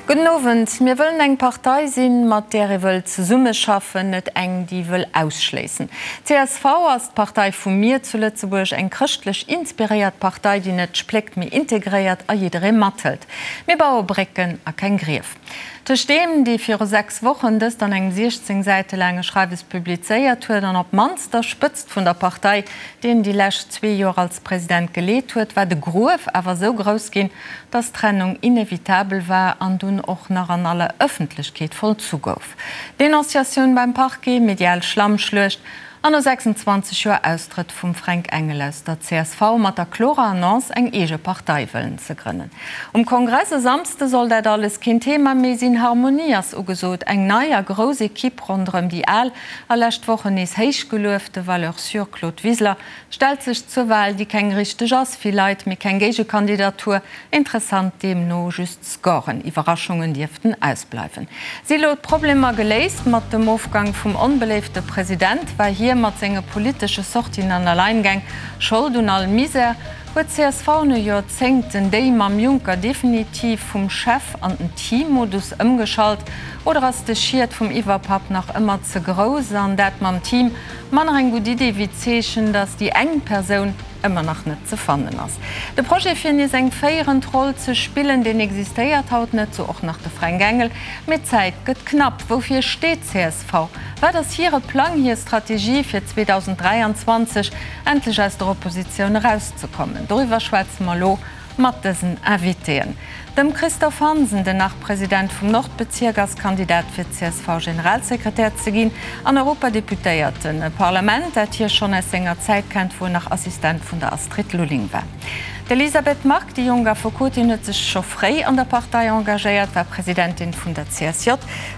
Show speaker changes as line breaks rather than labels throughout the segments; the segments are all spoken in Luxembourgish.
Gudden Owend. Mir wëllen eng Partei sinn, mat där ee wëll zesummeschaffen, net eng, déi wëll ausschléissen. Csv ass d'Partei vu mir zu Lëtzebuerg, eng chrëschtlech inspiréiert Partei, déi net spléckt, mee integréiert a jidderee mathëlt. Mir baue Brécken a keng Grief. Tëscht deem, dee viru 6 Wochen dëst an engem 16 Säite laange Schreiwes publizéiert huet, an op d'mannst der Spëtzt vun der Partei, déi en déi lescht zwee Joer als President geleet huet, war de Gruef awer esou grouss ginn, dass d'Trennung inevitabel war an dunn och nach an aller Ëffentlechkeet vollzu gouf. Denonciatioun beim Parquet, medial Schlammschluecht an no 26 Joer Austrëtt vum Fränk Engel aus der csv mat der klorer Annonce, eng eege Partei wëllen ze grënnen. Um Kongress e Samsde soll dat alles keen Thema méi sinn, Harmonie ass ugesot, eng nei a grouss Equipe ronderëm déi al a lescht Wochen nees héichgeluefte Valeur sûre Claude Wiseler Stellt sech zur Wahl, déi keng richteg ass, vill Leit, mee keng Géigekandidatur, interessant deemno just Scoren, Iwwerraschungen dierften ausbleiwen. Si lo d'Problemer geléist? Mat dem Ofgang vum onbeléifte President war hie mat senge politesche Sortien an Alleingäng Schold un all Misär. Huet csv no Joerzéngten déi mam Juncker definitiv vum Chef an den Team-Modus ëmgeschalt oder ass de Schiet vum Iwwerpapp nach ëmmer ze grouss an dat mam Team Manner eng gutt Idee wéi d'Zeechen, datt déi eng Persoun ëmmer nach net ze fannen ass. De Projet fir nees eng féierend Roll ze spillen, deen existéiert haut net, sou och nach de Fränk Engel. Mee d'Zäit gëtt knapp. Woufir steet csv? Wat ass hire Plang, hir Strategie fir 2023 endlech aus der Oppositioun erauszekommen? Doriwwer schwätze mer elo Mat dësen Invitéen, dem Christophe Hansen, den Nach-President vum Nordbezierk ass Kandidat fir CSV-Generalsekretär ze ginn, an Europadeputéierten, e Parlament, dat hie schonn aus senger Zäit kennt, wou en nach Assistent vun der Astrid Lulling war. D'Elisabeth Margue, déi jonk Affekotin, huet sech scho fréi an der Partei engagéiert, war Presidentin vun der CSJ,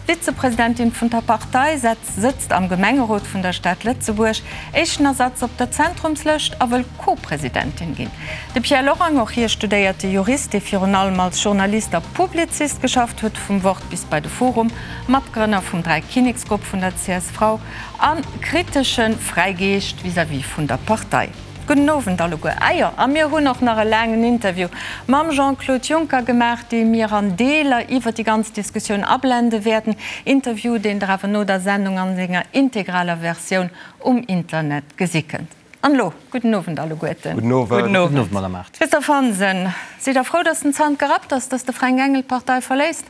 Vizepresidentin vun der Partei, sëtzt am Gemengerot vun der Stad Lëtzebuerg, éischten Ersatz op der Zentrumslëscht a wëll Co-Presidentin ginn. De Pierre Lorang, och hie studéierte Jurist, dee virun allem als Journalist a Publizist geschafft huet, vum Wort bis bei de Forum, Matgrënner vum Dräikinneksgrupp vun der csv a kritesche Fräigeescht vis-à-vis vun der Partei. Gudden Owend alleguer. Ah jo, a mir hunn och nach e laangen Interview mam Jean-Claude Juncker gemaach, dee mir an Deeler iwwer déi ganz Diskussioun ablende wäerten. Interview, deen Der awer no der Sendung an senger integraler Versioun um Internet gesi kënnt. An elo, gudden Owend alleguerten.
Gudden Owend.
Gudden Owend, Madame Mart. Christophe Hansen, sidd Der frou, datt den Zant gerappt ass, datt de Fränk Engel d'Partei verléisst?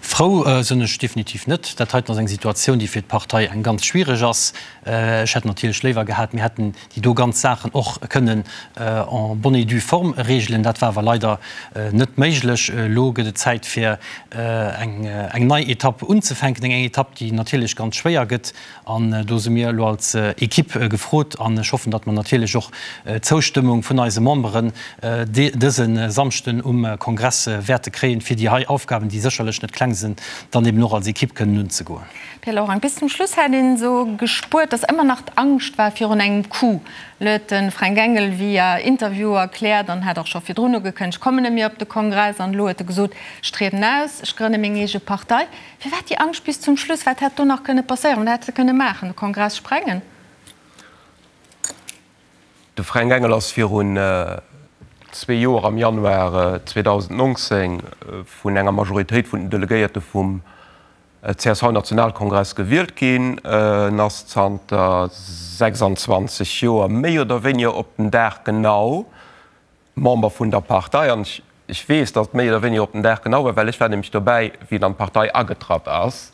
Frou sinn ech definitiv net. Dat heiten ass eng Situatioun, déi fir d'Partei eng ganz schwiereg ass. Ech hätt natierlech léiwer gehat, mir hätten déi do ganz Saachen och kënnen en bonne et due forme regelen. Dat war awer leider net méiglech. Elo gëtt et Zäit fir eng nei Etapp unzefänken, eng Etapp, déi natierlech ganz schwéier gëtt. An do si mir elo als Equipe gefrot an ech hoffen, datt mer natierlech och d'Zoustëmmung vun eise Memberen dëse Samschden um Kongress wäerte kréien, fir déi hei Aufgaben, déi sécherlech net kleng sinn, dann eben och als Equipe kënnen unzegoen.
Pierre Lorang, Bis zum Schluss hätt een esou gespuert, datt ëmmer nach d'Angscht war virun engem Coup. Elo huet de Fränk Engel via Interview erkläert an hat och scho virdrun ugekënnegt, kommen net méi op de Kongress. An elo huet e gesot, ech trieden aus, ech grënne meng eege Partei. Firwat déi Angscht bis zum Schluss? Wat hätt do nach kënne passéieren? Wat hätt se kënne maachen? De Kongress sprengen?
De Fränk Engel ass virun zwee Joer am Januar 2019 vun enger Majoritéit vun den Delegéierte vum CSV-Nationalkongress gewielt ginn. En ass zanter 26 Joer méi oder wéiniger op den Dag genau Member vun der Partei, an ech weess, datt et méi oder wéiniger op den Dag genau war, well ech war nämlech dobäi, wéi en an d'Partei agetratt ass,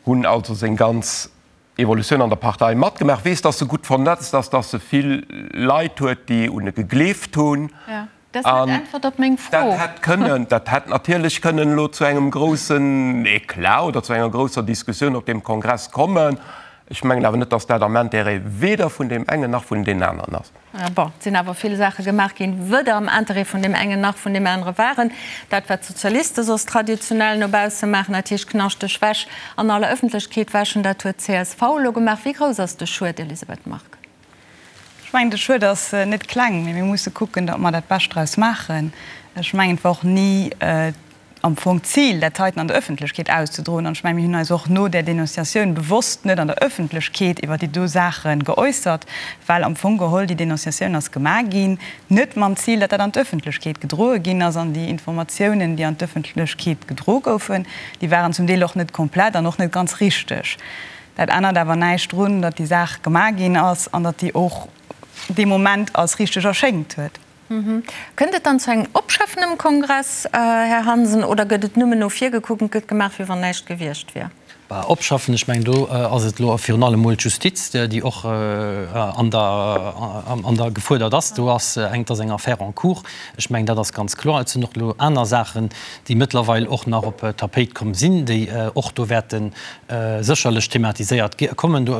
hunn also seng ganz Evolutioun an der Partei matgemaach, weess, datt e gutt vernetzt ass, datt e vill Leit huet, déi un e gegleeft hunn.
Dat ass net d'Äntwert op meng Fro.
Dat hätt kënnen, dat hätt natierlech kënnen elo zu engem groussen Eclat oder zu enger grousser Diskussioun op deem Kongress kommen. Ech mengen awer net, datt dat am Intérêt weder vun deem engen nach vun deenen aneren ass.
Bon, et sinn awer vill Saache gemaach ginn, weder am Interêt vun deem engen nach vun deem anere waren. Dat, wat d'Sozialiste soss traditionell no bausse maachen, dat heescht knaschteg Wäsch an aller Ëffentlechkeet wäschen, dat huet d'CSV elo gemaach. Wéi grouss ass de Schued, Elisabeth Margue?
Ech mengen, de Schued ass net kleng, mee mir musse kucken, datt mer dat Bescht draus maachen. Ech mengen, et war och ni. am Fong d'Zil, dat heiten an der Ëffentlechkeet auszedroen. An ech mengen, mir hunn eis och no där Denonciatioun bewosst net an der Ëffentlechkeet iwwer déi do Saache geäussert, well am Fong geholl déi Denonciatioun ass gemaach ginn, net mam Zil, datt dat an d'Ëffentlechkeet gedroe ginn ass. An déi Informatiounen, déi an d'Ëffentlechkeet gedro goufen, déi waren zum Deel och net komplett an och net ganz richteg. Dat ännert awer näischt drun, datt déi Saach gemaach ginn ass an datt déi och dee Moment als richteg erschéngt huet.
Kënnt et dann zu engem Opschaffen um Kongress, Här Hansen, oder gëtt et nëmmen no vir gekuckt an et gëtt gemaach, wéi wann näischt gewiescht wier?
Bah, opschaffen, ech mengen, do ass et elo virun allem emol d'Justiz, déi och an der, an der gefuerdert ass. Do ass eng, et ass eng Affaire en cours. Ech mengen, dat ass ganz kloer. Et sinn och elo aner Saachen, déi mëttlerweil och nach op d'Tapéit komm sinn, déi och do wäerte sécherlech thematiséiert kommen. Do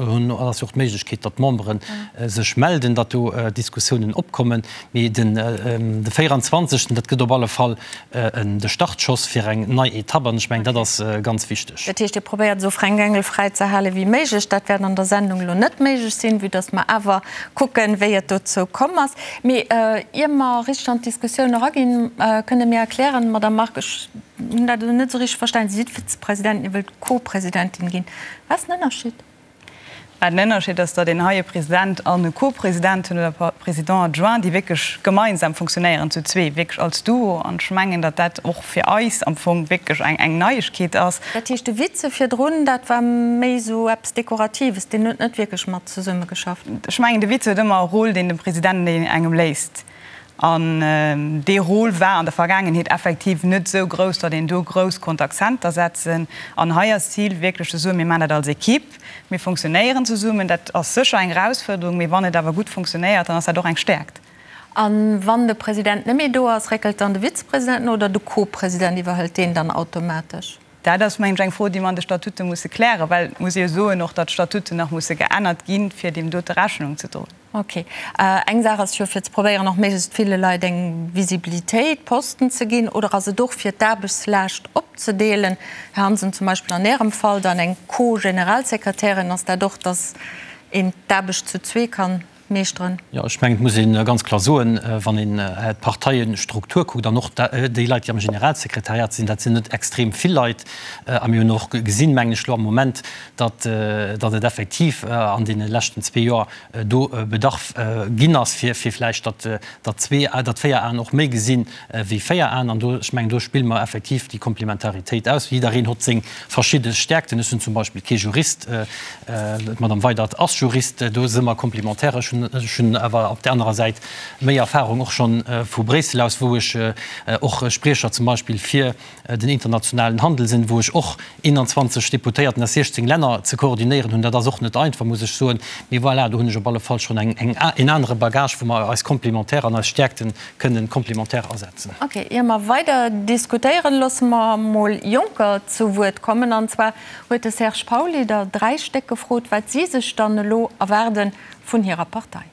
ass jo och d'Méiglechkeet, datt d'Membere sech melden, datt do Diskussiounen opkommen. Mee den de 24. Dat gëtt op alle Fall de Startschoss fir eng nei Etapp an ech mengen, dat ass ganz wichteg.
Dat heescht, Dir probéiert esou Fränk Engel fräi ze hale wéi méiglech. Dat wäert an der Sendung elo net méiglech sinn, vue datt mer awer kucken, wéi et dozou komm ass. Mee ier mer richteg an d'Diskussioun eraginn, kënnt Der mir erklären, Madamm Margue, ech hunn dat elo net esou richteg verstanen, Sie sidd Vizepresidentin, Dir wëllt Co-Presidentin ginn. Wat ass den Ënnerscheed?
Mä den Ënnerscheed ass, datt een hei e President an e Co-President hunn oder Président adjoint, déi wierklech gemeinsam funktionéieren, zu zwee, wierklech als Duo. An ech mengen, datt dat och fir eis am Fong wierklech eng, eng Neiegkeet ass.
Dat heescht, de Vize virdrun, dat war méi esou eppes Dekoratives, deen huet net wierklech mat zesummegeschafft?
Ech mengen, de Vize huet ëmmer e Rôle, deen dem President engem léisst. An dee Rôle war an der Vergaangenheet effektiv net esou grouss, datt een do grouss konnt Akzenter setzen. An hei ass d'Zil wierklech ze soen, mir maachen dat als Equipe, mir fonctionnéieren zesummen. Dat ass sécher eng Erausfuerderung, mee wann et awer gutt fonctionnéiert, dann ass dat och eng Stäerkt.
A wann de President net méi do ass, réckelt dann de Vizepresident no oder de Co-President iwwerhëlt deen dann automatesch?
Dat ass, mengen ech, eng Fro, déi mer an de Statute musse klären, well et muss ee jo soen och, datt d'Statuten nach musse geännert ginn, fir deem dote Rechnung ze droen.
Ok. Eng Saach ass jo, fir ze probéieren, och méiglechst ville Leit eng Visibilitéit, Posten ze ginn, oder ass et och, fir d'Aarbechtslaascht opzedeelen? Här Hansen, zum Beispill an Ärem Fall dann eng Co-Generalsekretärin, ass dat och, datt een d'Aarbecht zu zwee kann meeschteren?
Jo, ech mengen, et muss ee ganz kloer soen, wann een d'Parteiestruktur kuckt an och déi Leit, déi am Generalsekretariat sinn, dat sinn net extrem vill Leit. A mir hunn och gesinn, mengen ech elo am Moment, datt datt et effektiv an deene leschten zwee Joer do Bedarf ginn ass, fir fir vläicht datt datt zwee, datt véier Aen och méi gesinn wéi véier Aen. An do, ech mengen, do spille mer effektiv déi Komplementaritéit aus. Jiddereen hott seng verschidde Stärkten. Ech sinn zum Beispill kee Jurist, d'Madame Weydert ass Jurist, do si mer komplementär. Ech hunn, ech hunn awer op där anerer Säit méi Erfahrung och schonn vu Bréissel aus, wou ech och Spriecher zum Beispill fir den internationalen Handel sinn, wou ech och 21 Deputéierten aus 16 Länner ze koordinéieren hunn. Dat ass och net einfach, muss ech soen. Mee voilà, do hunn ech op alle Fall schonn eng, eng, en anere Bagage, wou mer eis komplementär an eis Stäerkte kënnen komplementär asetzen.
Ok, ier mer weider diskutéieren, loosse mer mol Jonker zu Wuert kommen. An zwar huet de Serge Pauly der 3 Stéck gefrot, wat si sech dann elo erwaarde vun hirer Partei.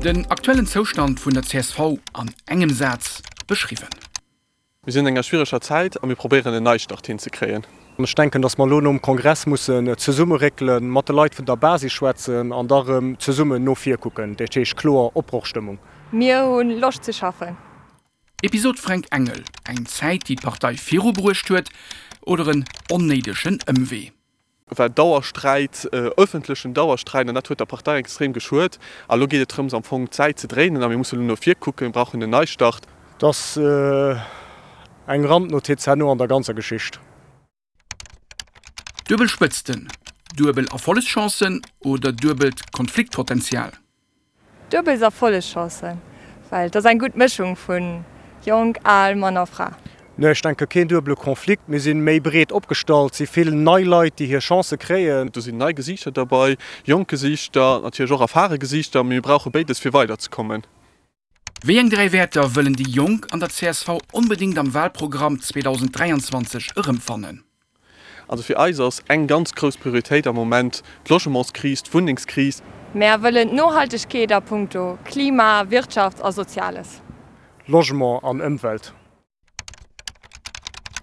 Den aktuellen Zoustand vun der csv an engem Saz beschriwwen.
Mir sinn an enger schwiereger Zäit a mir probéieren en Neistart hinzekréien.
Ech denken, datt mer elo nom Kongress mussen zesummeréckelen, mat de Leit vun der Basis schwätzen an da rëm zesummen no vir kucken. Dat heescht kloer Opbrochstëmmung.
Mir hu Loscht ze schaffen.
Episod Fränk Engel, Eng Zäit déi d'Partei virubruecht huet oder en onnéidegen Ëmwee?
War Dauersträit, ëffentlechen Dauersträit, an dat huet der Partei extrem geschuet. A lo geet et drëms am Fong d'Säit ze dréinen a mir musse lo no vir kucken, mir brauchen en Neistart.
Et ass eng Randnotiz herno an der ganzer Geschicht.
Duebel Spëtzten, duebel Erfollegschancen oder duebelt Konfliktpotenzial?
Duebel Erfollegschancen, well et ass eng gutt Mëschung vu Jonk, Al, Mann a Fra.
Nee, ech denke keen duebele Konflikt. Mir si méi breet opgestallt, si vill nei Leit, déi hir Chancë kréien.
Do sinn nei Gesiichter derbei, jonk Gesiichter, natierlech och erfare Gesiichter, mee mir brauche béides fir weiderzekommen.
Wéi eng 3 Wäerter wëllen déi Jonk an der csv onbedéngt am Walprogramm 2023 erëmfannen?
Also fir eis ass eng ganz grouss Prioritéit am Moment d'Logementskris, d'Wunnengskris.
Mär wëllen d'Nohaltegkeet a punkto Klima, Wirtschaft a Soziales.
Logement an Ëmwelt.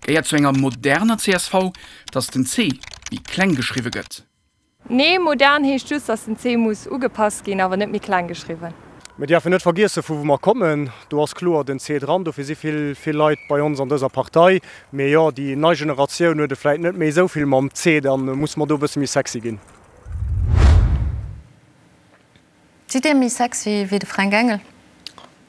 Gehéiert zu enger moderner csv, datt den C méi kleng geschriwwe gëtt?
Nee, modern heescht just, dass den C muss ugepasst ginn, awer net méi kleng geschriwwen.
Mir däerfen net vergiessen, vu wou mer kommen. Do ass kloer den C dran. Dofir si vill, vill Leit bei ons an dëser Partei. Mee jo, déi nei Generatioun huet et vläit net méi esou vill mam C. Da musse mer do e bësse méi sexy ginn.
Sidd Dir méi sexy wéi de Fränk Engel?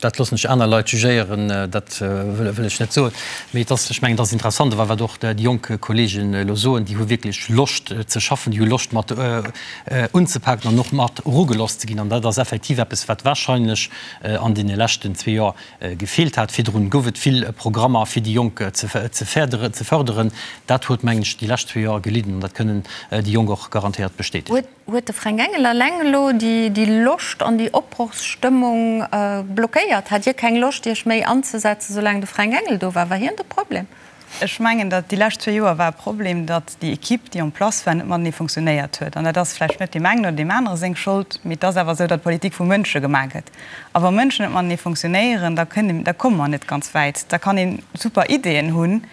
Dat loossen ech aner Leit jugéieren, dat wëll ech net soen. Mee et ass, ech mengen, et ass interessant, awer wat och déi jonk Kolleegen elo soen, déi hu wierklech Loscht ze schaffen, déi hu Loscht mat unzepaken an och mat erugelooss ze ginn. An dat ass effektiv eppes, wat wahrscheinlech an deene leschten zwee Joer gefeelt hat. Virdrun gouf et vill Programmer, fir déi Jonk ze fërderen. Dat huet, mengen ech, déi lescht zwee Joer gelidden an dat kënnen déi Jonk och garantéiert bestätegen.
Huet de Fränk Engel eleng elo déi Loscht an déi Opbrochsstëmmung blockéiert? Hat Dir keng Loscht Iech méi anzesetzen, soulaang de Fränk Engel do war? War hien de Problem?
Ech mengen, datt déi lescht zwee Joer war e Problem, datt déi Equipe, déi en place war, net matenee funktionéiert huet. An dat ass vläicht net deem engen oder deem anere seng Schold, mee et ass awer esou, datt Politik vu Mënsche gemaach gëtt. A wa Mënschen net matenee funktionéieren, da kënne, da komme mer net ganz wäit. Da kann ee super Ideeën hunn,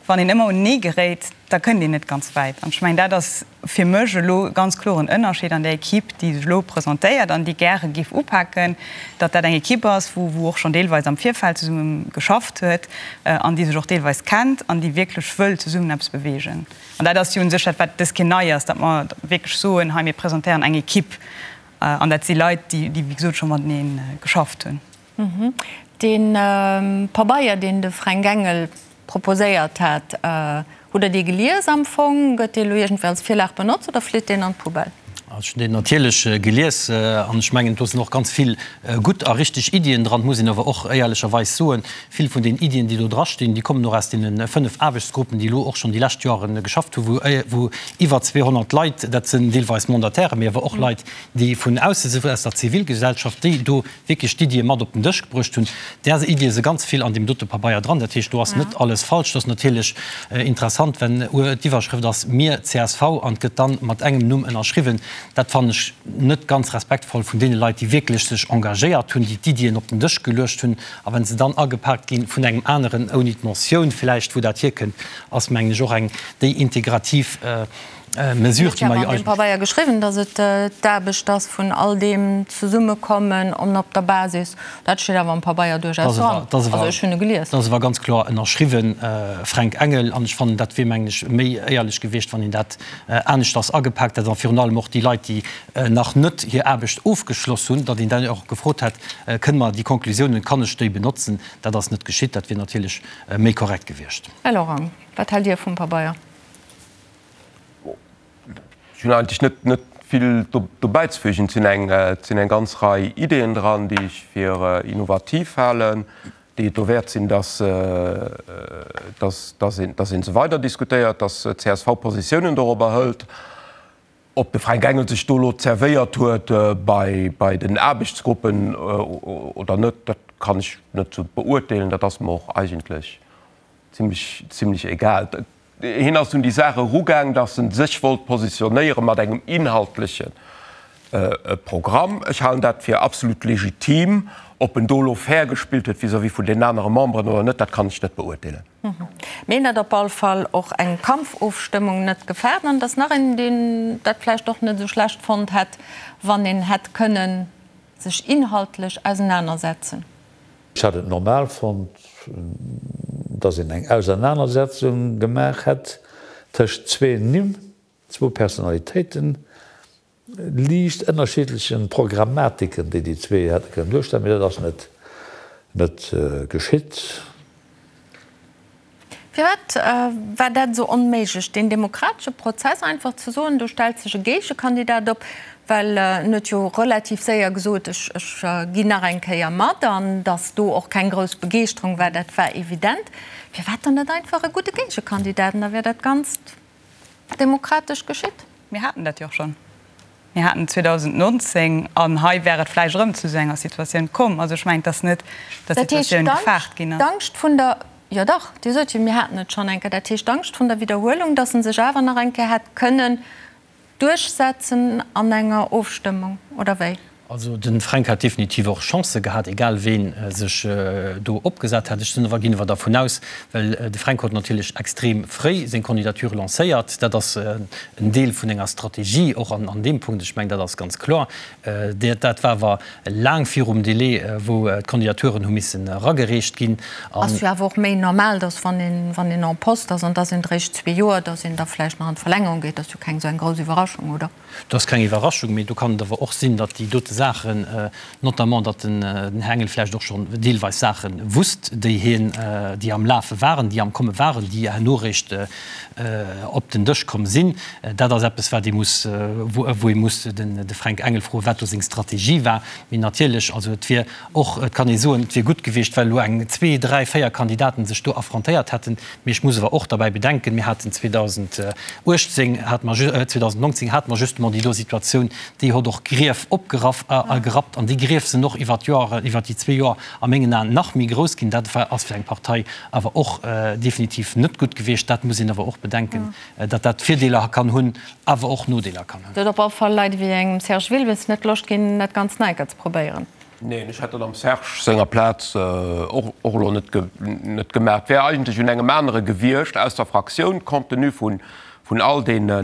wann een ëmmer unenee geréit, da kënnt een net ganz wäit. An ech mengen, dat ass fir mech elo ganz kloren Ënnerscheed an där Equipe, déi sech elo presentéiert an déi gäre géif upaken, datt dat eng Equipe ass, wou wou och schonn deelweis am Virfeld zesumme geschafft huet an déi sech och deelweis kennt an déi wierklech wëll zesummen eppes beweegen. An dat ass jo u sech dat, wat dës Keer nei ass, datt mer wierklech soen, hei mir presentéieren eng Equipe an dat si Leit, déi déi wéi gesot scho matenee geschafft hunn.
Dee Pabeier, deen de Fränk Engel proposéiert hat, hutt Der dee gelies am Fong? Gëtt dee elo iergendwéi als Virlag benotzt oder flitt deen an d'Poubelle?
Ech hunn deen natierlech gelies an ech mengen, do sinn och ganz vill gutt a richteg Iddien dran. Et muss een awer och éierlecherweis soen, vill vun den Iddien, déi do drastinn, déi kommen och aus deene 5 Aarbechtsgruppen, déi elo och schonn déi lescht Joren geschafft hunn, wou iwwer 200 Leit, dat sinn deelweis Mandatairen, mee awer och Leit, déi vun ausse sinn, aus der Zivilgesellschaft, déi do wierklech d'Iddie mat op den Dësch gebruecht hunn. Där Iddie si ganz vill an deem dote Pabeier dran. Dat heescht, do ass net alles falsch. Et ass natierlech interessant, wenn d'Iwwerschrëft ass Mir, csv, an et gëtt dann mat engem Numm ënnerschriwwen. Dat fannen ech net ganz respektvoll vun deene Leit, déi wierklech sech engagéiert hunn, déi d'Iddien op den Dësch geluecht hunn. A wa se dann agepaakt gi vun engem aneren, ouni d'Mentioun vläicht, wou dat hierkënnt, ass, mengen ech, och eng déi integrativ Mesure,
déi mer jo eigentlech. An deem Pabeier geschriwwen, datt et d'Aarbecht ass vun all deem Zesummekommen an op der Basis. Dat steet awer am Pabeier duerchaus dran. Also ech hunn e gelies.
Dat ass awer ganz kloer ënnerschriwwen, Fränk Engel. An ech fannen, dat wier, mengen ech, méi éierlech gewiescht, wann een dat aneschters agepaakt hätt. A virun allem och déi Leit, déi nach net hir Aarbecht ofgeschloss hunn, datt een dann och gefrot hätt, Kënne mer déi Konklusiounen, kann ech déi benotzen? Dat ass net geschitt. Dat wier natierlech méi korrekt gewiescht.
Här Lorang, wat haalt Dir vum Pabeier?
Ech hunn eigentlech net, net vill do bäizefügen. Et sinn eng, et sinn eng ganz Rei Ideeën dran, déi ech fir innovativ halen, déi et dowäert sinn, dass, dass, dass een, dass ee se weider diskutéiert, dass csv Positiounen dorobber hëlt. Ob de Fränk Engel sech do elo zerwéiert huet bei, bei den Aarbechtsgruppen oder net, dat kann ech net esou beurteelen. Dat ass mer och eigentlech zimmlech, zimmlech egal. Hien ass un déi Saach erugaang, datt en sech wollt positionéiere mat engem inhaltleche Programm. Ech halen dat fir absolut legitim. Ob en do elo fair gespillt huet vis-à-vis vun den anere Memberen oder net, dat kann ech net beurteelen.
Mee en hat op all Fall och eng Kampfofstëmmung net gefaart. An et ass nach een, deen dat vläicht och net esou schlecht fonnt hätt, wann een hätt kënnen sech inhaltlech ausenanersetzen.
Ech hätt et normal fonnt, datt een eng Ausernanersetzung gemaach hätt tëscht zwee Nimm, zwou Personalitéiten, liicht ënnerschiddlechen Programmatiken, déi déi zwee hätte kënnen duerstellen, mee dat ass net net geschitt.
Firwat war dat esou onméiglech, deen demokratesche Prozess einfach ze soen, do stellt sech e Géigekandidat op, well en huet jo relativ séier gesot, ech ginn nach eng Kéier mat, an datt do och keng grouss Begeeschterung war, dat war evident. Firwat dann net einfach e gudde Géigekandidat, an da wär dat Ganzt demokratesch geschitt?
Mir haten dat jo och schonn. Mir haten 2019, an hei wär et vläicht erëm zu esou enger Situatioun komm. Also ech mengen, et ass net, datt d'Situatioun gefaart ginn ass.
Dat heescht, d'Angscht vun der, jo dach, Dir sot jo, mir haten et schonn eng Kéier, dat heescht d'Angscht vun der Widderhuelung, datt e sech awer nach eng Kéier hätt kënnen duerchsetzen an enger Ofstëmmung, oder wéi?
Also de Fränk hat definitiv och Chancë gehat, egal ween sech do opgesat hätt. Ech sinn awer, ginn awer dervun aus, well de Fränk huet natierlech extrem fréi seng Candidature lancéiert, dat ass en Deel vun enger Strategie och an deem Punkt, ech mengen dat ass ganz kloer. Dat war awer laang virum Délai, wou d'Candidaturen hu missen eragereecht ginn.
Ass jo awer och méi normal, datt wann een, wann een en poste ass an et ass een eréischt zwee Joer, datt een da vläicht nach an d'Verlängerung geet. Dat ass jo keng esou eng grouss Iwwerraschung, oder?
Dat ass keng Iwwerraschung, mee do kann et awer och sinn, datt déi dote Saachen, notamment datt den Här Engel vläicht och schonn deelweis Saache wusst, déi hien, déi am Lafe waren, déi am Komme waren, déi herno eréischt op den Dësch komm sinn. Dat ass eppes, wat ee muss, wou ee muss de Fränk Engel froen, wat do seng Strategie war. Mee natierlech, also et wier och, et kann ee soen, et wier gutt gewiescht, well elo eng, zwee, dräi, véier Kandidaten sech do affrontéiert hätten. Mee ech muss awer och derbäi bedenken, mir haten 2018, hate mer, 2019 hate mer justement déi do Situatioun, déi hott och Grief opgeraff a gerappt. An déi Grief sinn och iwwert d'Joer, iwwert déi zwee Joer a mengen Aen nach méi grouss ginn. Dat war, ass fir eng Partei awer och definitiv net gutt gewiescht. Dat muss een awer och bedenken, datt dat Virdeeler kann hunn, awer och Nodeeler kann hunn.
Et huet op alle Fall Leit ewéi engem Serge Wilmes net Loscht ginn, dat Ganzt nach eng Kéier ze probéieren.
Neen, ech hätt dat am Serge senger Plaz och elo net gemaach. Et wär eigentlech un engem anere gewiescht aus der Fraktioun, compte tenu vun all deene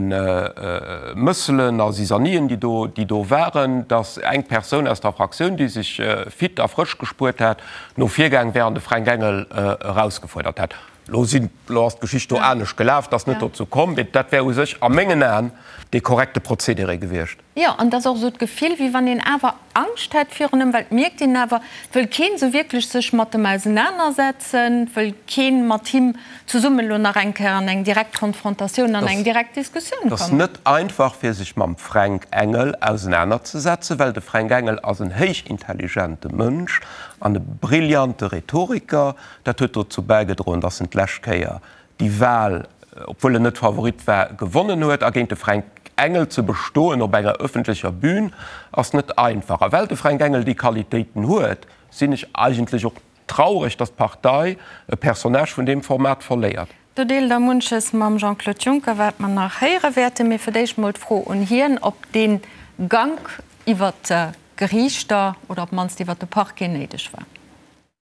Mësselen a Zisanien, déi do waren, datt eng Persoun aus der Fraktioun, déi sech fit a frësch gespuert hat, no vir gaang wär an de Fränk Engel erausgefuerdert hätt. Elo sinn, elo ass d'Geschicht do anescht gelaf, et ass net dozou komm, mee dat wär u sech a mengen Aen dee korrekte Procédéré gewiescht.
Jo, an et ass och esou d'Gefill, wéi wann een awer Angscht hätt virun ëm, well et mierkt een awer, et wëll keen esou wierklech sech mat em ausenanersetzen, et wëll keen mat him zesummen elo nach eng Kéier an eng direkt Konfrontatioun, an eng direkt Diskussioun
kommen. Et ass net einfach, fir sech mam Fränk Engel ausenanerzesetzen, well de Fränk Engel ass en héichintelligente Mënsch an e brillante Rhetoriker. Dat huet dozou bäigedroen, datt en d'lescht Kéier déi Wahl, obwuel en net Favorit war, gewonnen huet. A géint de Fränk Engel ze bestoen op enger ëffentlecher Bühn ass net einfach. A well de Fränk Engel déi Qualitéiten huet, sinn ech eigentlech och traureg, datt d'Partei e Personnage vun deem Format verléiert.
Do deelt Der munches mam Jean-Claude Juncker, wat mer nach héiere wäerten. Mee fir d'éischt mol d'Fro un hien, ob dee Gank iwwer d'Geriichter oder op d'mannst iwwer de Parquet néideg war.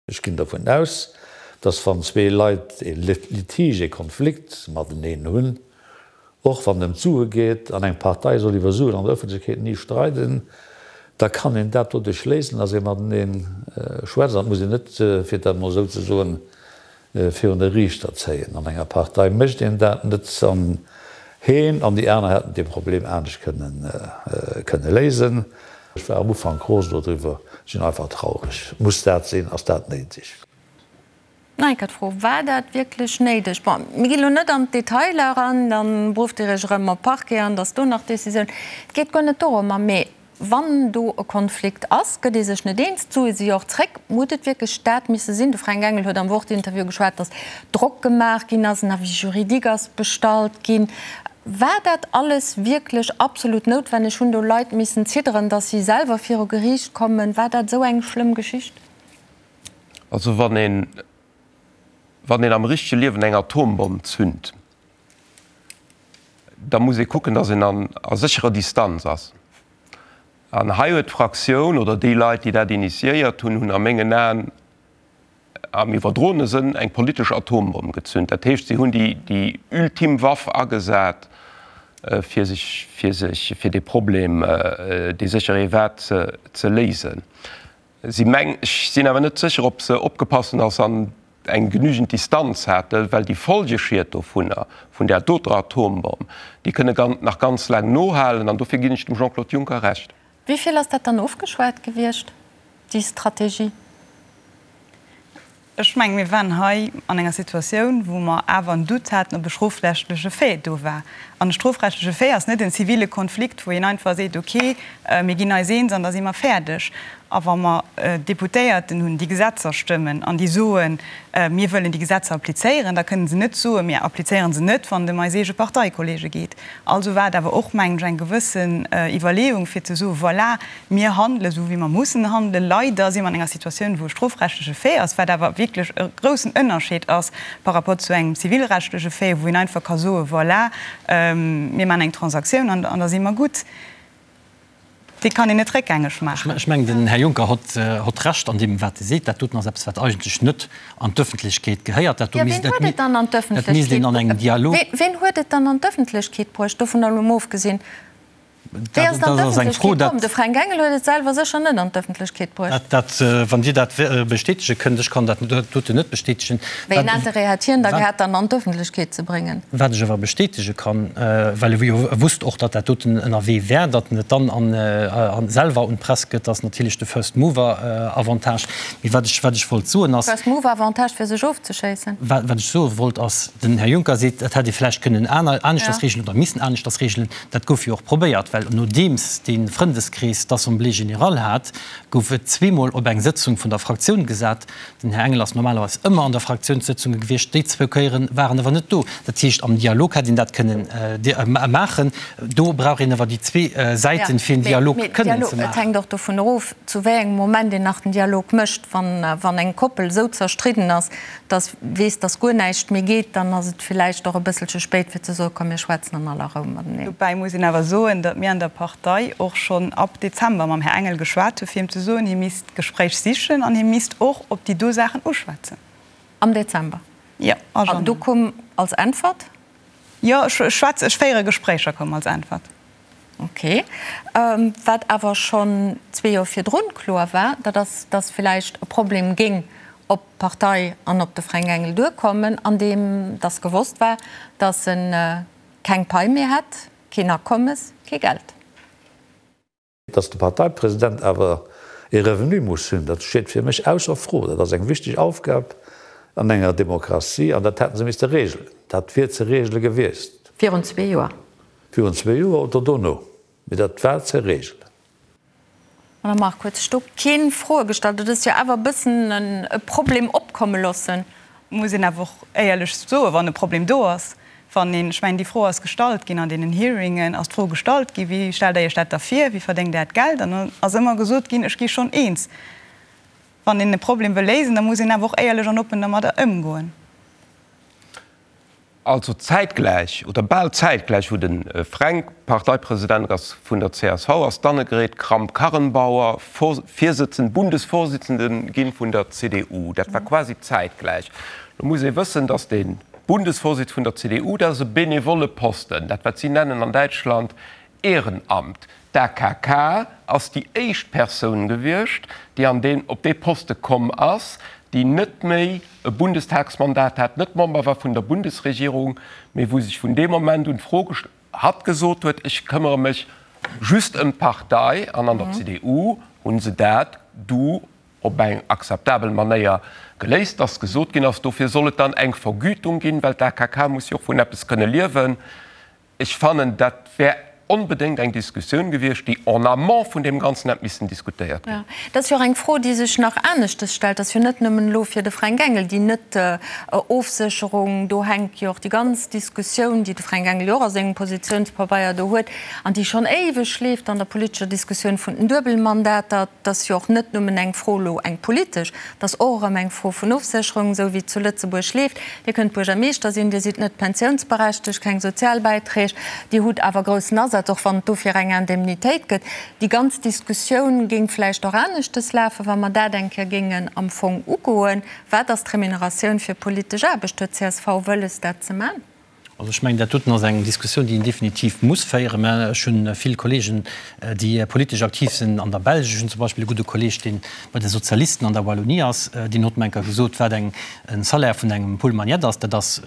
Ech ginn dervun aus, dass wann zwee Leit e Litige, e Konflikt mateneen hunn, och wann et ëm d'Sue geet, an eng Partei soll iwwer Suen an der Ëffentlechkeet ni streiden, da kann een dat doduerch léisen, dass ee matenee schwätzt. An et muss een net, fir dat emol esou ze soen, virun de Riichter zéien. An enger Partei mécht een dat net. An heen an déi aner hätten dee Problem anescht kënne léisen. Ech war am Ufank rosen dodriwwer, sinn einfach traureg. Muss dat sinn? Ass dat néideg?
Nach eng Kéier d'Fro, War dat wierklech néideg? Bon, mir ginn elo net an d'Detailer eran, da berufft Dir Iech erëm op Parquet an datt do nach Décisioun. Et geet guer net dorëmmer, mee Wann do e Konflikt ass, gëtt ee sech net eens, d'Sue si jo och zréck. Huet et wierklech dat misse sinn? De Fränk Engel huet am Wort-Interview geschwat, datt Drock gemaach ginn ass, en Avis juridique ass bestallt ginn. War dat alles wierklech absolut noutwenneg? Hunn do Leit missen zidderen, datt si selwer viru Geriicht kommen? War dat esou eng schlëmm Geschicht?
Also wann een, wann een am richtege Liewen eng Atombomm zünt, da muss ee kucken, datt een an a sécherer Distanz ass. An hei huet d'Fraktioun oder déi Leit, déi dat initiéiert hunn, hunn a mengen Aen am iwwerdroene Sënn eng politesch Atombomm gezünt. Dat heescht, si hunn déi, déi ultim Waff agesat, fir sech, fir sech, fir dee Problem, dee sécher ee war, ze, ze léisen. Si meng, ech sinn awer net sécher, ob se opgepasst hunn, dass se an eng genügend Distanz haten, well déi Folgeschied dovunner, vun där doter Atombomm, déi kënne nach ganz laang nohalen. An dofir ginn ech dem Jean-Claude Juncker Recht.
Wéi vill ass dat dann ofgeschwat gewiescht, déi Strategie?
Ech mengen, mir waren hei an enger Situatioun, wou mer awer en Doute haten, ob e strofrechtleche Fait do war. An e strofrechtleche Fait ass net en zivile Konflikt, wou een einfach seet, okay, mir ginn eis eens an da si mer fäerdeg. A wa mer Deputéierten hunn, déi Gesetzer stëmmen an déi soen, mir wëllen déi Gesetzer applizéieren, da kënnen se net soen, mir applizéiere se net, wann et ëm eis eege Parteikollege geet. Also war et awer och, mengen ech, eng gewëssen Iwwerleeung, fir ze soen, voilà, Mir handelen esou, wéi mer mussen handelen. Leider si mer an enger Situatioun, wou e strofrechtleche Fait ass, wat awer wierklech e groussen Ënnerscheed ass par rapport zu engem zivilrechtleche Fait, wou een einfach ka soen, voilà, mir maachen eng Transaktioun an da si mer gutt. Dee kann een net réckgängeg maachen.
Ech mengen, den Här Juncker hott Recht an deem, wat e seet. Dat doten ass eppes, wat eigentlech net an d'Öffentlechkeet gehéiert. Dat do misst, dat misst een an engem Dialog.
Ween huet et dann an d'Öffentlechkeet bruecht, dovun elo mol ofgesinn? Wéi ass et an d'Ëffentlechkeet komm? De Fränk Engel huet et selwer sécher net an d'Ëffentlechkeet bruecht.
Dat, wann Dir dat bestätege kënnt, ech kann dat doten net bestätegen.
Wéi en Interêt hätt hien da gehat, dann an d'Ëffentlechkeet ze bréngen?
Wat ech awer bestätege kann, well e jo wusst och, datt dat doten ënnerwee wär, datt en et dann selwer un d'Press gëtt, ass natierlech de First Mover Avantage. Mee wat ech, wat ech wollt soen ass.
First Mover Avantage fir sech ofzeschéissen?
Wat ech soe wollt ass, den Här Juncker seet, dat hätt ee vläicht kënnen aneschters reegelen oder missen aneschters reegelen. Dat gouf jo och probéiert, well nodeems dee Frëndeskrees d'Assemblée générale hat, gouf et zweemol op eng Sëtzung vun der Fraktioun gesat. Den Här Engel ass normalerweis ëmmer an der Fraktiounssëtzunge gewiescht, déi zwou Kéiere war en awer net do. Dat heescht, am Dialog hätt een dat kënnen maachen. Do brauch een awer déi zwee Säiten, fir en Dialog kënnen ze maachen.
Et hänkt och dovun erof, zu wéi engem Moment een nach den Dialog mécht. Wann eng Koppel esou zerstridden ass, dass weess, dass guer näischt méi geet, dann ass et villäicht och e bësselche spéit fir ze soen, komm mir schwätzen an aller Rou mateneen.
Dobäi muss een awer soen, datt mir an der Partei och schonn ab Dezember mam Här Engel geschwat hu fir him ze soen, hie misst d'Gespréich sichen an hie misst och op déi do Saachen uschwätzen.
Am Dezember?
Jo, a
Januar. An do koum als Äntwert?
Jo, ech schwätze, ech féiere Gespréicher, koum als Äntwert.
Ok. Wat awer schonn zwee Joer virdrun kloer war, dat ass, datt villäicht e Problem géing op d'Partei an op de Fränk Engel duerkommen, andeem datt gewosst war, datt e keng Pai méi hätt, keen Akommes, kee Geld.
Datt de Parteipresident awer ee Revenu muss hunn, dat steet fir mech ausser Fro. Dat ass eng wichteg Aufgab an enger Demokratie an dat hätte se misste regelen. Dat wier ze regele gewiescht.
Virun zwee Joer.
Virun zwee Joer oder dono, mee dat war ze regelen.
Madame Margue, huet sech do keen Froe gestallt? Dat ass jo awer e bëssen e Problem opkomme loossen.
Muss een awer och éierlech soen, wann e Problem do ass, wann een, ech mengen, déi Fro ass gestallt ginn an deenen Hearingen, ass d'Fro gestallt ginn, Wéi stellt Der Iech dat da vir, wéi verdéngt Der Äert Geld? An dann ass ëmmer gesot ginn, Ech gi schonn eens. Wann een e Problem wëll léisen, da muss een awer och éierlech an oppen dermadder ëmgoen.
Also zäitgläich, oder bal zäitgläich, wou de Fränk Parteipresident ass vun der csv, ass d'Annegret Kramp-Karrenbauer Virsëtzend, Bundesvorsitzende ginn vun der CDU. Dat war quasi zäitgläich. Lo muss ee wëssen, datt de Bundesvorsitz vun der CDU, dat ass e benevolle Posten, dat wat si nennen an Däitschland Ehrenamt. D'AKK ass déi éischt Persoun gewiescht, déi an deen, op dee Poste komm ass, déi net méi e Bundestagsmandat hat, net Member war vun der Bundesregierung, mee wou sech vun deem Moment un d'Fro gest-, hatt gesot huet, ech këmmere mech just ëm d'Partei. An an der CDU hu se dat du op eng akzeptabel Manéier geléist, dass gesot ginn ass, dofir soll et dann eng Vergütung ginn, well d'AKK muss jo och vun eppes kënne liewen. Ech fannen, dat wär onbedéngt eng Diskussioun gewiescht, déi en amont vun deem Ganzen hätt missen diskutéiert ginn.
Jo, dat ass jo och eng Fro, déi sech nach aneschtes stellt. Dat ass jo net nëmmen elo fir de Fränk Engel déi Net-Ofsécherung. Do hänkt jo och déi ganz Diskussioun, déi de Fränk Engel jo och a sengem Positiounspabeier do huet an déi schonn éiweg leeft an der politescher Diskussioun vun den Duebelmandater. Dat ass jo och net nëmmen eng Fro elo, eng politesch, dat ass och erëm eng Fro vun Ofsécherung, esou wéi et zu Lëtzebuerg leeft. Dir kënnt Buergermeeschter sinn, Dir sidd net pensiounsberechtegt, keng Sozialbäiträg, Dir hutt awer groussen Asaz, och wann et dofir eng Indemnitéit gëtt. Déi ganz Diskussioun géing vläicht och aneschtes lafen, wa mer dat eng Kéier géingen am Fong ugoen. Wat ass d'Remuneratioun fir politesch Aarbecht? Huet csv wëlles, dat ze man?
Also ech mengen, dat doten ass eng Diskussioun, déi een definitiv muss féieren. Mä ech hu vill Kollegen, déi politesch aktiv sinn an der Belsch. Ech hunn zum Beispill e gudde Kolleg, dee bei de Sozialisten an der Wallonie ass, deen huet mer eng Kéier gesot, wat eng e Salaire vun engem Paul Magnette ass. Dat ass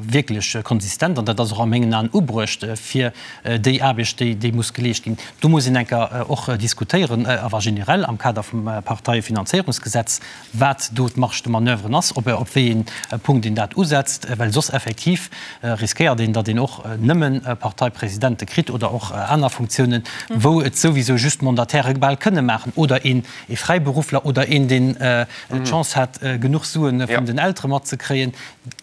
wierklech konsistent an dat ass och a mengen Aen ubruecht fir déi Aarbecht, déi déi muss geleescht ginn. Do muss een eng Kéier och diskutéieren, awer generell am Kader vum Parteiefinanzéierungsgesetz, wat do d'Marge de manoeuvre ass, op op wéi ee Punkt een dat usetzt, well soss effektiv riskéiert een, datt een och nëmme Parteipresidente kritt oder och aner Funktiounen, wou et souwisou just Mandataire bal kënne maachen oder een ee Fräiberuffler oder een, deen d'Chance hat, genuch Sue vun den Eltere matzekréien.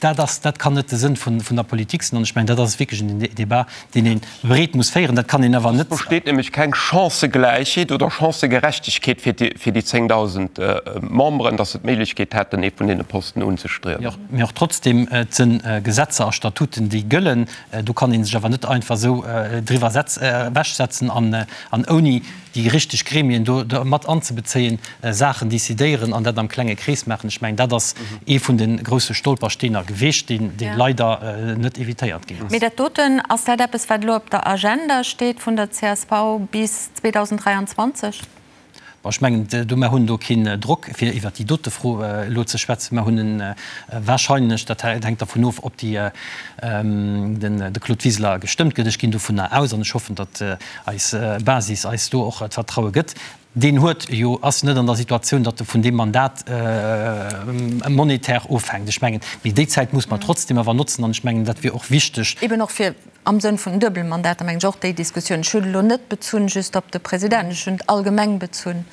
Dat ass, dat kann net de Sënn vun der Politik sinn. An ech mengen, dat ass wierklech en Débat, deen ee breet muss féieren. Dat kann een awer net.
Et besteet nämlech keng Chancëgläichheet oder Chancëgerechtegkeet fir déi, fir déi 10.000 Memberen, datt se d'Méiglechkeet hätten, ee vun deene Posten unzestriewen.
Mee och trotzdem, et sinn Gesetzer a Statuten. Statuten, déi gëllen. Do kann ee sech awer net einfach esou driwwer ewechsetzen an ouni déi richteg Gremien do mat anzebezéien, Saachen decidéieren an dat am klenge Krees maachen. Ech mengen, dat ass ee vun de grousse Stolpersteener geweecht, dee leider net evitéiert ginn ass.
Mee dat doten, ass dat eppes, wat elo op der Agenda steet vun der csv bis 2023?
Bon, ech mengen, do, mer hunn do keen Drock, fir iwwert déi dote Fro elo ze schwätzen. Mer hunn en wahrscheinlech, dat hänkt dervun of, ob déi, den, de Claude Wiseler gestëmmt gëtt. Ech ginn dovunner aus an ech hoffen, datt eis Basis eis do och d'Vertraue gëtt. Deen huet jo, ass net an der Situatioun, datt e vun deem Mandat monetär ofhänkt. Ech mengen, mee déi Zäit muss mer trotzdem awer notzen an ech mengen, dat wier och wichteg.
Eben och fir Am Sënn vun den Duebelmandater mengen ech och déi Diskussioun. Ech hunn elo net bezunn just op de President, ech hunn et allgemeng bezunn.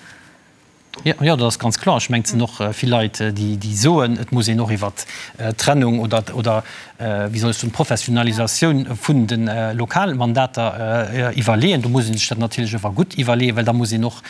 Jo, jo, dat ass ganz kloer. Ech mengen, et sinn och vill Leit, déi, déi soen, et muss een och iwwert d'Trennung oder, oder wéi soll ech soen, d'Professionalisatioun vun de Lokalmandater iwwerleeën. Do muss ee sech dat natierlech awer gutt iwwerleeën, well da muss een och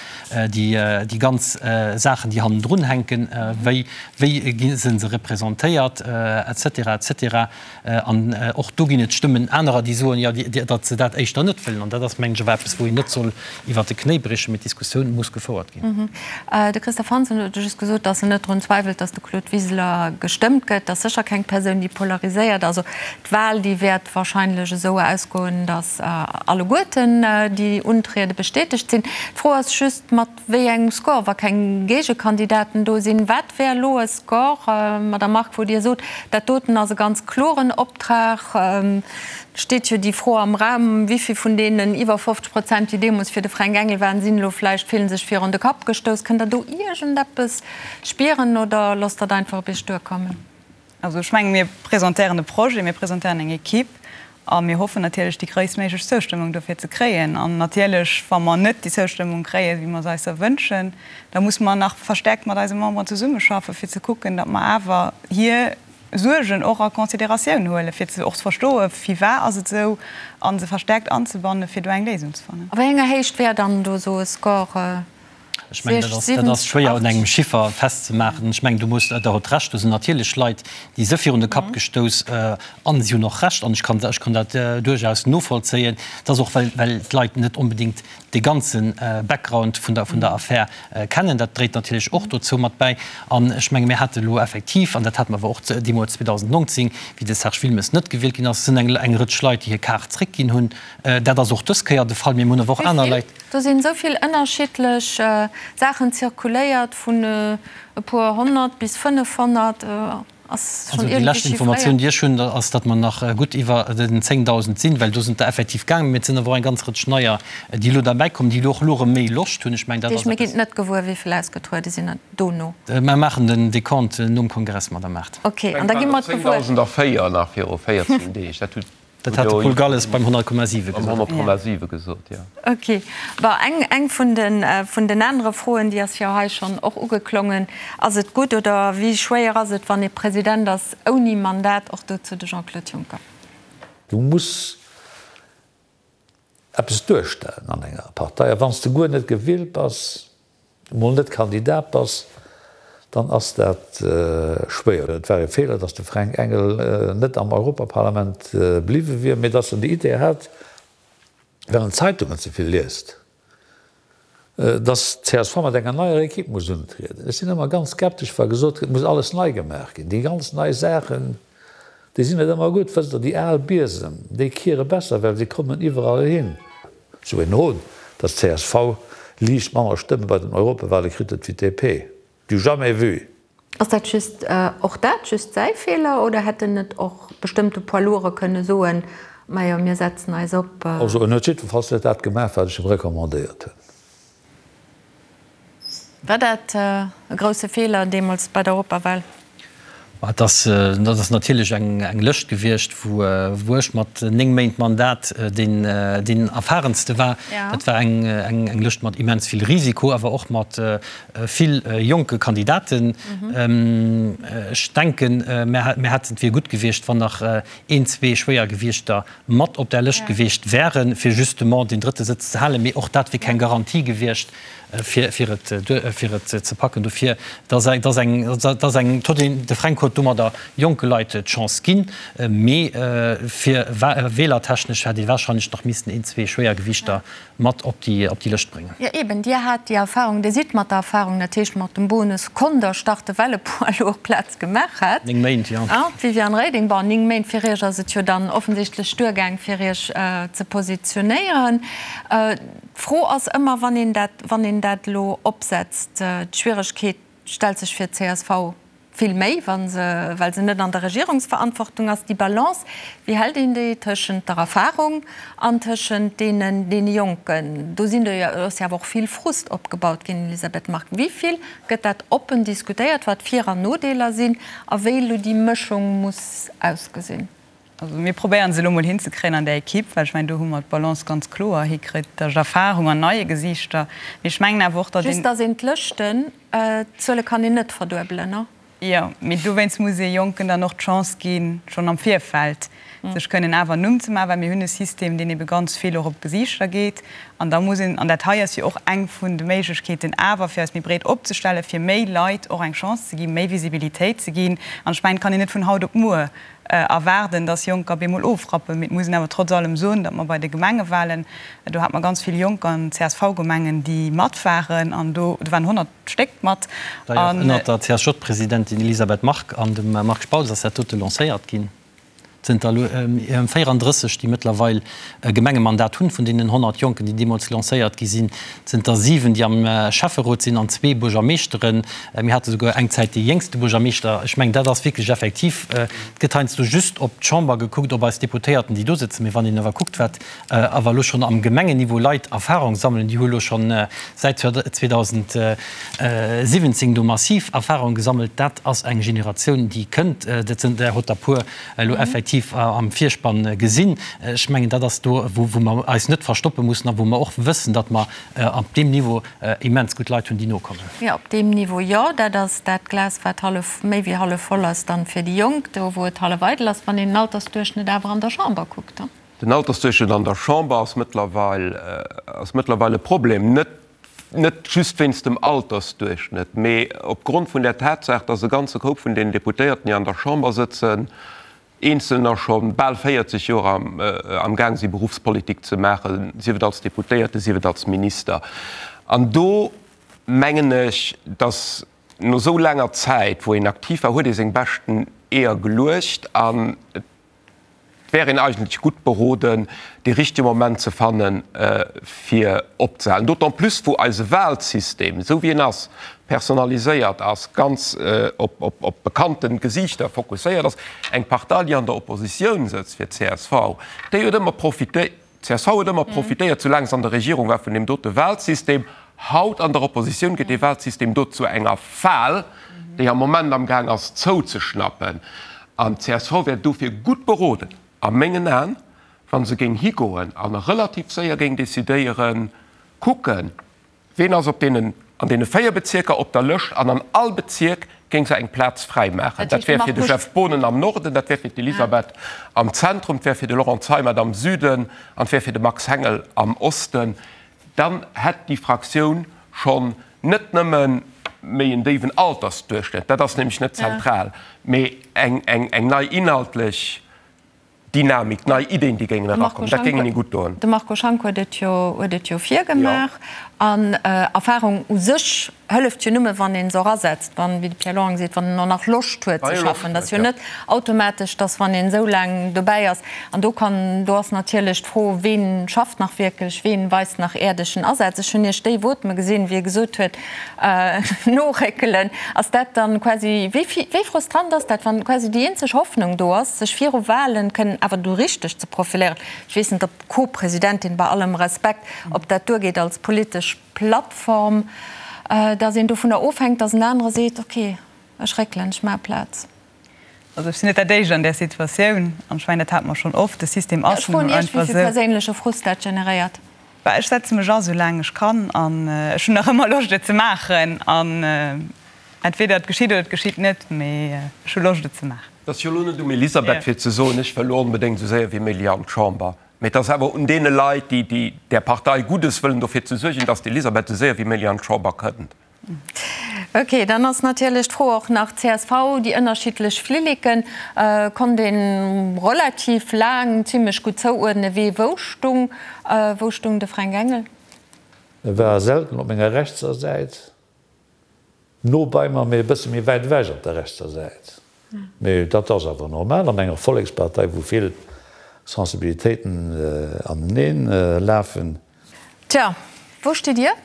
déi, déi ganz Saachen, déi hannendrun hänken, wéi, wéi gi se representéiert, et cetera, et cetera, An och do ginn et Stëmmen anerer, déi soen, jo, datt se dat éischter net wëllen. An dat ass, mengen ech, awer eppes, wou een net soll iwwert de Knéi briechen, mee d'Diskussioun muss gefouert ginn.
De Christophe Hansen huet just gesot, datt en net drun zweiwelt, datt de Claude Wiseler gestëmmt gëtt. Dat ass sécher keng Persoun, déi polariséiert. Also d'Wal, déi wäert wahrscheinlech esou ausgoen, datt alleguerten déi untriede bestätegt sinn. D'Fro ass just, mat Wéi engem Score, wa keng Géigekandidaten do sinn? Wat wär elo e Score, Madamm Margue, wou Dir sot, dat doten ass e ganz kloren Optrag? Et steet jo déi Fro am Raum, Wéi vill vun deenen iwwer 50 Prozent, déi deemools fir de Fränk Engel waren, sinn elo vläicht, fillen sech virun de Kapp gestouss? Kënnt Der do iergendeppes spieren oder loosst Der et einfach op Iech duerkommen?
Also ech menge mir presentéieren e Projet, mir presentéieren eng Equipe a mir hoffen natierlech déi gréisstméiglech Zoustëmmung dofir ze kréien. An natierlech, wa mer net déi Zoustëmmung kréien, wéi mer se eis erwënschen, da musse mer nach verstärkt mat eise Memberen zesummeschaffen, fir ze kucken, datt mer awer hir Suergen och a Consideratioun huelen, fir ze och ze verstoen, firwat ass et esou, a se verstärkt anzebannen, fir do eng Léisung ze fannen.
A wéi enger Héicht wär dann do esou e Score?
Ech mengen, dat ass, dat ass schwéier un engem Chiffer festzemaachen. Ech mengen, du muss, Der hutt Recht, do sinn natierlech Leit, déi se virun de Kapp gestouss an si hunn och Recht an ech kann, ech kann dat duerchaus novollzéien. Et ass och, well, well d'Leit net onbedéngt dee ganze Background vun der, vun der Affär kennen. Dat dréit natierlech och dozou mat bäi. An ech menge mir hate elo effektiv, an dat hate mer awer och deemools 2019, wéi de Serge Wilmes net gewielt ginn ass, sinn eng, eng Rëtsch Leit, déi hir Kaart zréckginn hunn. Dat ass och dës Kéier de Fall. Mir hunn awer och aner Leit.
Do sinn esou vill ënnerschiddlech Saachen zirkuléiert, vun e puer 100 bis 500. Ass
schonn iergendwéi chiffréiert? Also déi lescht Informatioun, déi ech hunn, ass, datt mer nach gutt iwwer den 10.000 sinn, well do sinn der effektiv gaangen. Mee et sinn awer och eng ganz Rëtsch neier, déi elo derbäikommen, déi elo och elo erëm méi Loscht hunn. Ech mengen, dat
ass eppes. Mir ginn net gewuer, wéi vill ausgetruede sinn dono.
Mer maachen den Decompte nom Kongress, Madamm Mart.
Ok, an da gi mer et gewuer.
10.004 nach viru 14 Deeg. Dat huet
Dat hat de Paul Galles beim 100,7
gesot. Beim 100,7 gesot, jo.
Ok. Bon, eng, eng vun den, vun den anere Froen, déi ass jo hei schonn och ugeklongen, Ass et gutt oder wéi schwéier ass et, wann ee President ass ouni Mandat? Och dozou de Jean-Claude Juncker.
Du muss eppes duerstellen an enger Partei. A wann s de guer net gewielt bass, emol net Kandidat bass, dann ass dat schwéier. Et war e Feeler, datt de Fränk Engel net am Europaparlament bliwwe wier, mee datt en déi Idee hat, well en d'Zeitungen ze vill liest, datt d'CSV mat enger neier Equipe muss untrieden. Ech sinn ëmmer ganz skeptesch, wa gesot gëtt, et muss alles nei gemaach ginn. Déi ganz nei Saachen, déi sinn net ëmmer gutt. Wësst Der, déi al Biesem, déi kiere besser, well se kommen iwwerall hin. Sou een Hohn, datt csv liicht manner Stëmme bei den Europawale kritt huet wéi d'DP. Du jamais vu!
Ass dat just, och dat just säi Feeler oder hätt en net och bestëmmte Poids lourds kënne soen, majo mir setzen eis op.
Also en huet jiddwerfalls net dat gemaach wat ech em recommandéiert hunn.
War dat e grousse Feeler deemools bei der Europawal?
Et ass, dat ass natierlech eng Lëscht gewiescht, wou ech mat 9 Méint Mandat deen, deen erfahrenste war. Dat war eng, eng Lëscht mat immens vill Risiko, awer och mat vill jonke Kandidaten. Ech denken, mir hätten, et wier gutt gewiescht, wann nach een, zwee Schwéiergewiichter mat op där Lëscht gewiescht wären, fir justement deen drëtte Sëtz ze halen. Mee och dat wier keng Garantie gewiescht. Fir et ze packen. Dofir, et ass eng, et ass eng, de Fränk huet domadder jonke Leit d'Chance ginn, mee fir wählertechnesch hätt ee wahrscheinlech nach missten een, zwee Schwéiergewichter mat op déi Lëscht bréngen.
Jo eben, Dir hat déi Erfahrung, Dir sidd mat der Erfahrung, dat heescht mat dem Bonus konnt Der starte well e Poids lourd Plaz gemaach hat.
9 Méint, jo.
D'Viviane Reding, bon, 9 Méint, fir Iech ass et jo dann offensichtlech duergaang fir Iech ze positionéieren. D'Fro ass ëmmer, wann een dat, wann een dat elo opsetzt, d'Schwieregkeet stellt sech fir d'CSV vill méi, wa se, well se net an der Regierungsverantwortung ass, déi Balance, wéi hält een déi tëschent der Erfahrung an tëschent deenen, deene Jonken? Do sinn do jo, ass jo awer och vill Frust opgebaut ginn, Elisabeth Margue. Wéi vill gëtt dat oppen diskutéiert, wat Vir an Nodeeler sinn a wéi elo déi Mëschung muss ausgesinn?
Also mir probéieren se elo mol hinzekréien an där Equipe, well ech mengen, do hu mer d'Balance ganz kloer hikritt tëscht Erfahrung an neie Gesiichter. Mee ech mengen awer och, datt een.
Just datt een d'Lëschten, d'Zuele kann een net verduebelen, ne?
Jo, mee dowéinst muss ee Jonken dann och d'Chance ginn, schonn am Virfeld sech kënnen awer en Numm ze maachen, well mir hunn e System, deen ebe ganz vill och op d'Gesiichter geet. An da muss een, an dat hei ass jo och eng vun de Méiglechkeeten awer, fir eis méi breet opzestellen, fir méi Leit och eng Chance ze ginn, méi Visibilitéit ze ginn. An ech mengen, et kann een net vun haut op muer erwaarden, dass Jonker bemol ofrappen. Mee et muss een awer trotz allem soen, datt mer bei de Gemengewahlen, do hate mer ganz vill Jonker an CSV-Gemengen, déi mat waren, an do waren 100 Stéck mat.
D'ailleurs, ënnert der CSJ-Presidentin Elisabeth Margue an dem Marc Spautz ass dat dote lancéiert ginn. Zënter elo 34, déi mëttlerweil e Gemengemandat hunn, vun deenen 100 Jonken, déi deemools lancéiert gi sinn, zënter 7, déi am Schäfferot sinn an zwee Buergermeeschteren. Mir hate souguer eng Zäit dee jéngste Buergermeeschter. Ech mengen, dat ass wierklech effektiv, et gëtt heiansdo just op d'Chamber gekuckt, op eis Deputéierten, déi do sëtzen, mee wann een awer kuckt, wat awer elo schonn am Gemengenniveau Leit Erfahrung sammelen, déi hu elo schonn säit 2017 do massiv Erfahrung gesammelt, dat ass eng Generatioun, déi kënnt. Dat sinn der hutt der puer elo effektiv am Virspann gesinn. Ech mengen, dat ass do, wou mer eis net verstoppe mussen a wou mer och wëssen, datt mer op deem Niveau immens gutt Leit hunn, déi nokommen.
Jo, op deem Niveau jo. Dat ass dat Glas, wat hallef, méi wéi hallef voll ass dann fir déi Jonk, do wou et hallef eidel ass, wann een den Altersduerchschnëtt awer an der Chamber kuckt.
Den Altersduerchschnëtt an der Chamber ass mëttlerweil, ass mëttlerweil e Problem. Net, net just wéinst dem Altersduerchschnëtt, mee opgrond vun der Tatsaach, dass e ganze Koup vun deenen Deputéierten, déi an der Chamber sëtzen, Eenzelner scho bal 40 Joer am Gaang si Beruffspolitik ze maachen, sief et als Deputéierte, sief et als Minister. An do mengen ech, datt no esou laanger Zäit, wou een aktiv war, huet ee seng beschten Eeër geluecht an et wär een eigentlech gutt beroden, dee richtege Moment ze fannen, fir opzehalen. D'autant plus wou eise Wahlsystem, esou wéi en ass, personaliséiert ass, ganz op bekannte Gesiichter fokusséiert ass. Eng Partei, déi an der Oppositioun sëtzt, fir d'CSV, déi huet ëmmer profitéiert, d'CSV huet ëmmer profitéiert, soulaang se an der Regierung war, vun deem dote Wahlsystem. Haut an der Oppositioun gëtt dee Wahlsystem do zu enger Fal, déi am Moment amgaang ass zouzeschnappen. An d'CSV wär dofir gutt beroden, a mengen Aen, wa se géing higoen a relativ séier géing decidéieren, kucken, Ween ass op deenen, an deene 4 Bezierker op der Lëscht an an all Bezierk géing se eng Plaz fräi maachen. Dat wär fir de Jeff Boonen am Norden, dat wär fir d'Elisabeth am Zentrum, 't wär fir de Laurent Zeimet am Süden an 't wär fir de Max Hengel am Osten. Dann hätt déi Fraktioun schonn net nëmme méi en déiwen Altersduerchschnëtt, dat ass nämlech net zentral, mee eng nei inhaltlech Dynamik, nei Ideen, déi géingen erakommen, dat géing hinne gutt doen.
De Marco Schank huet et jo, huet et jo virgemaach. An Erfahrung u sech hëlleft jo nëmme, wann ee se och asetzt, wann, wéi de Pierre Lorang seet, wann en och nach Loscht huet ze schaffen. Dat ass jo net automatesch, dass wann een esou laang dobäi ass, an do kann, do ass natierlech d'Fro, ween schafft nach wierklech, ween weist nach äerdegen Asaz. Ech hunn Iech déi Voteme gesinn, wéi e gesot huet, Noréckelen, ass dat dann quasi, wéi wéi frustrant ass dat, wann quasi déi eenzeg Hoffnung do ass, sech viru Wahlen kënnen awer do richteg ze profiléieren? Ech weess net, ob d'Co-Presidentin, bei allem Respekt, ob dat duergeet als politesch Plattform, datt een dovunner ofhänkt, datt en anere seet, okay, ech réckelen, ech maache Plaz.
Also ech sinn net dat éischt an där Situatioun an ech mengen, dat hate mer schonn oft, de System ass nun
einfach esou. Ech froen Iech, wéi vill perséinleche Frust dat generéiert.
Bah, ech setze mech a sou laang ech kann an ech hunn nach ëmmer Loscht et ze maachen an entweder et geschitt oder et geschitt net, mee ech hu Loscht et ze maachen.
Et ass jo elo net um Elisabeth fir ze soen, ech wëll elo onbedéngt esou séier wéi méiglech an d'Chamber. Mee et ass awer un deene Leit, déi, déi där Partei Guddes wëllen, dofir ze suergen, dass d'Elisabeth esou séier wéi méiglech an d'Chamber kënnt.
Ok, dann ass natierlech d'Fro och nach, csv, déi ënnerschiddlech Flilleken konnt ee relativ laang zimlech gutt zouuerdnen, wee wou stung. Wou stung de Fränk Engel?
E war selten op menger rechtser Säit. No bei mer, mee e bësse méi wäit ewech op der rechtser Säit. Mee dat ass awer normal an enger Vollekspartei, wou vill Sensibilitéiten aneneen lafen.
Tja, wou stitt Dir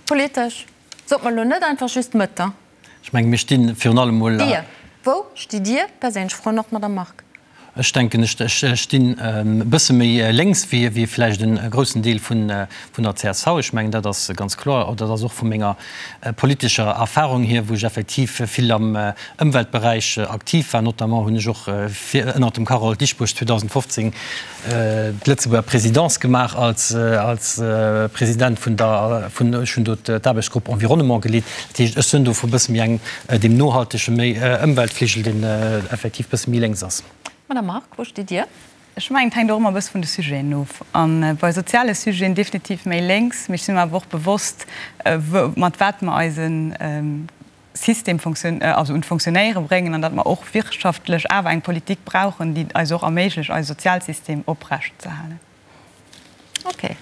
politesch? Sot mer elo net einfach just Mëtt, da.
Ech menge mir sti virun allem mol.
Dir, wou stitt Dir perséinlech? Froen och d'Madame Margue.
Ech denken, ech stinn e bësse méi lénks wéi vläicht e groussen Deel vun der csv. Ech mengen, dat ass ganz kloer. Dat ass och vu menger politescher Erfahrung hier, wou ech effektiv vill am Ëmweltberäich aktiv war. Notamment hunn ech och ënnert dem Carole Dieschbourg 2015 d'Lëtzebuerger Présidence gemaach als President vun der, ech hunn do d'Aarbechtsgrupp Environnement geleet. Dat heescht, ech sinn do vu bësse méi engem, deem nohaltege, méi Ëmweltfligel, deen effektiv bësse méi lénks ass.
Madame Margue, wou stitt Dir?
Ech mengen, et hänkt och ëmmer e bësse vun de Sujeten of. A bei soziale Sujeten definitiv méi lénks, mee ech si mer awer och bewosst, mat wat mer eise System also un d'Fonctionnéiere bréngen an datt mer och wirtschaftlech awer eng Politik brauchen, déi et eis och erméiglecht, eise Sozialsystem oprecht ze halen.
Okay.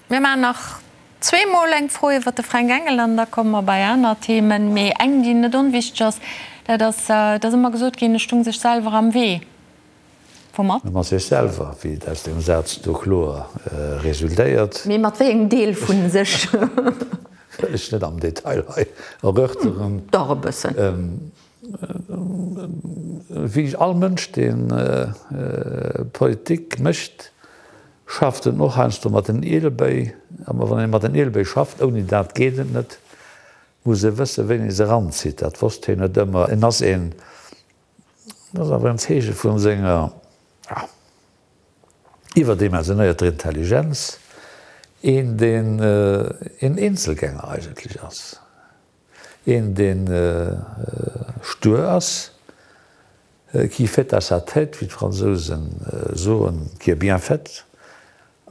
Mir maachen nach zweemol eng Fro iwwert de Fränk Engel an da komme mer bei aner Themen. Mee eng, déi net onwichteg ass, dat ass, et ass ëmmer gesot ginn, e stung sech selwer am Wee. Woumat?
Mat sech selwer, wéi et aus deem Saz do kloer resultéiert.
Mee mat wéi engem Deel vu sech?
Wëll ech net am Detail hei erörteren.
Dach e bëssen.
Wéi all Mënsch, dee Politik mécht, schafft en och heiansdo mat den Ielebéi. Awer wann ee mat den Ielebéi schafft, ouni dat geet et net, muss e wëssen, wéini e se eranzitt. Dat wosst hien net ëmmer. En ass een Dat ass awer en Zeeche vu senger iwwerdimensionéierter Intelligenz, een deen een Eenzelgänger eigentlech ass, een deen stur ass, qui fait à sa tête, wéi d'Fransousen soen, qui est bien faite.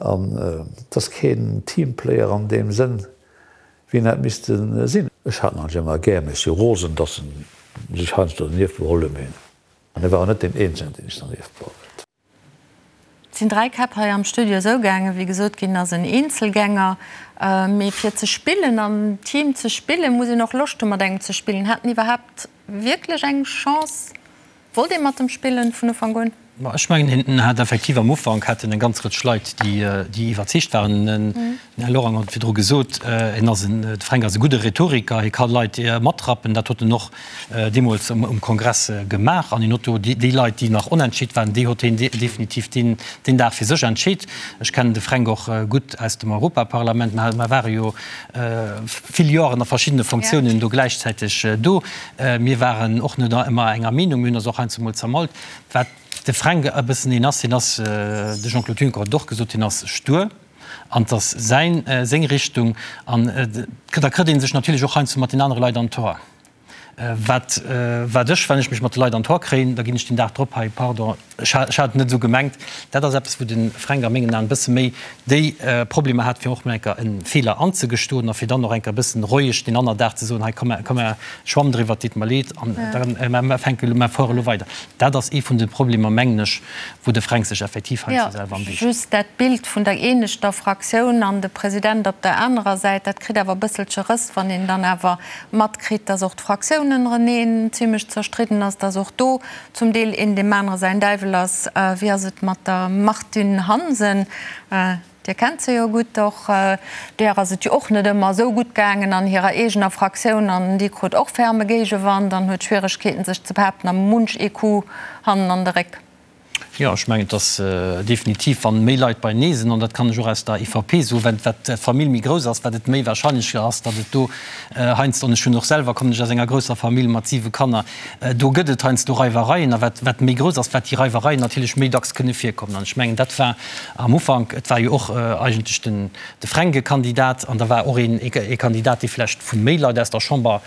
An et ass keen Teamplayer an deem Sënn, wéi en hätt misste sinn. Ech hat en ëmmer gär, mee ech si rosen, datt en sech heiansdo dernieft beholl huet. Mee en war och net deen eenzegen, deen sech dernieft beholl huet.
Et sinn 3 Käpp hei am Studio esou gaangen, wéi gesot ginn ass, en Eenzelgänger. Mee fir ze spillen, am Team ze spillen, muss een och Loscht hu mat engem ze spillen. Hat en iwwerhaapt wierklech eng Chance? Wollt ee mat em spillen vun Ufank un?
Ma ech mengen, hien hat effektiv am Ufank hat en eng ganz Rëtsch Leit, déi, déi iwwerzeegt waren. Den Här Lorang huet et virdru gesot, en ass en, de Fränk ass e gudde Rhetoriker, hie ka Leit matrappen. Dat huet en och deemools um Kongress gemaach. An hien huet do déi Leit, déi nach onentscheet waren, déi huet hien definitiv deen, deen Dag fir sech entscheet. Ech kennen de Fränk och gutt aus dem Europaparlament. Mer ware jo vill Joren a verschiddene Fonctiounen do gläichzäiteg do. Mir waren och net ëmmer enger Meenung, mir hunn eis och heiansdo mol zermallt. Wat de Fränk e bëssen een ass, hien ass, de Jean-Claude Juncker huet et och gesot, hien ass stur an et ass säin, seng Richtung an da kritt ee sech natierlech och heiansdo mat den anere Leit an d'Hoer. Wat, wat ech, wann ech mech mat de Leit an d'Hoer kréien, da ginn ech den Dag drop hei, pardon, Ech hat et net esou gemengt. Dat ass eppes, wou de Fränk a mengen Aen e bësse méi déi Problemer hat, fir och mol eng Kéier e Feeler anzegestoen a fir dann och eng Kéier e bëssen roueg deen anner Dag ze soen, hei komm, komm mer, schwamm driwwer, et deet mer leed an da mer fänke elo, mer fuere elo weider. Dat ass ee vun de Problemer, mengen ech, wou de Fränk sech effektiv heiansdo selwer am Wee
steet. Just dat Bild vun der eeneschter Fraktioun an de President op der anerer Säit, dat kritt awer e bësselche Rëss, wann een dann awer matkritt, dass och d'Fraktioun ënnereneen zimlech zerstridden ass, dass och do Zum Deel een deem anere säin Däiwel ass. Wéi ass et mat der Martine Hansen? Dir kennt se jo gutt. Och där ass et jo och net ëmmer esou gutt gaangen an hirer eegener Fraktioun an déi krut och ferme Géigewand an huet Schwieregkeeten sech ze behaapten a munch ee Coup hannen an de Réck.
Jo, ech mengen, et ass definitiv, wann méi Leit beienee sinn, an dat kann ech och aus der EVP soen, wat wat d'Famill méi grouss ass, wat et méi wahrscheinlech ass, datt et do heiansdo, an ech hunn och selwer, kommen ech aus enger grousser Famill mat siwe Kanner, Do gëtt et heiansdo Reiwereien, a wat, wat méi grouss ass, wat déi Reiwereien natierlech méi dacks kënne virkommen. An ech mengen, dat war am Ufank, et war jo och eigentlech den, de Fränk e Kandidat, an da war och een, ee Kandidat, dee vlächtt vu méi Leit aus der Chamber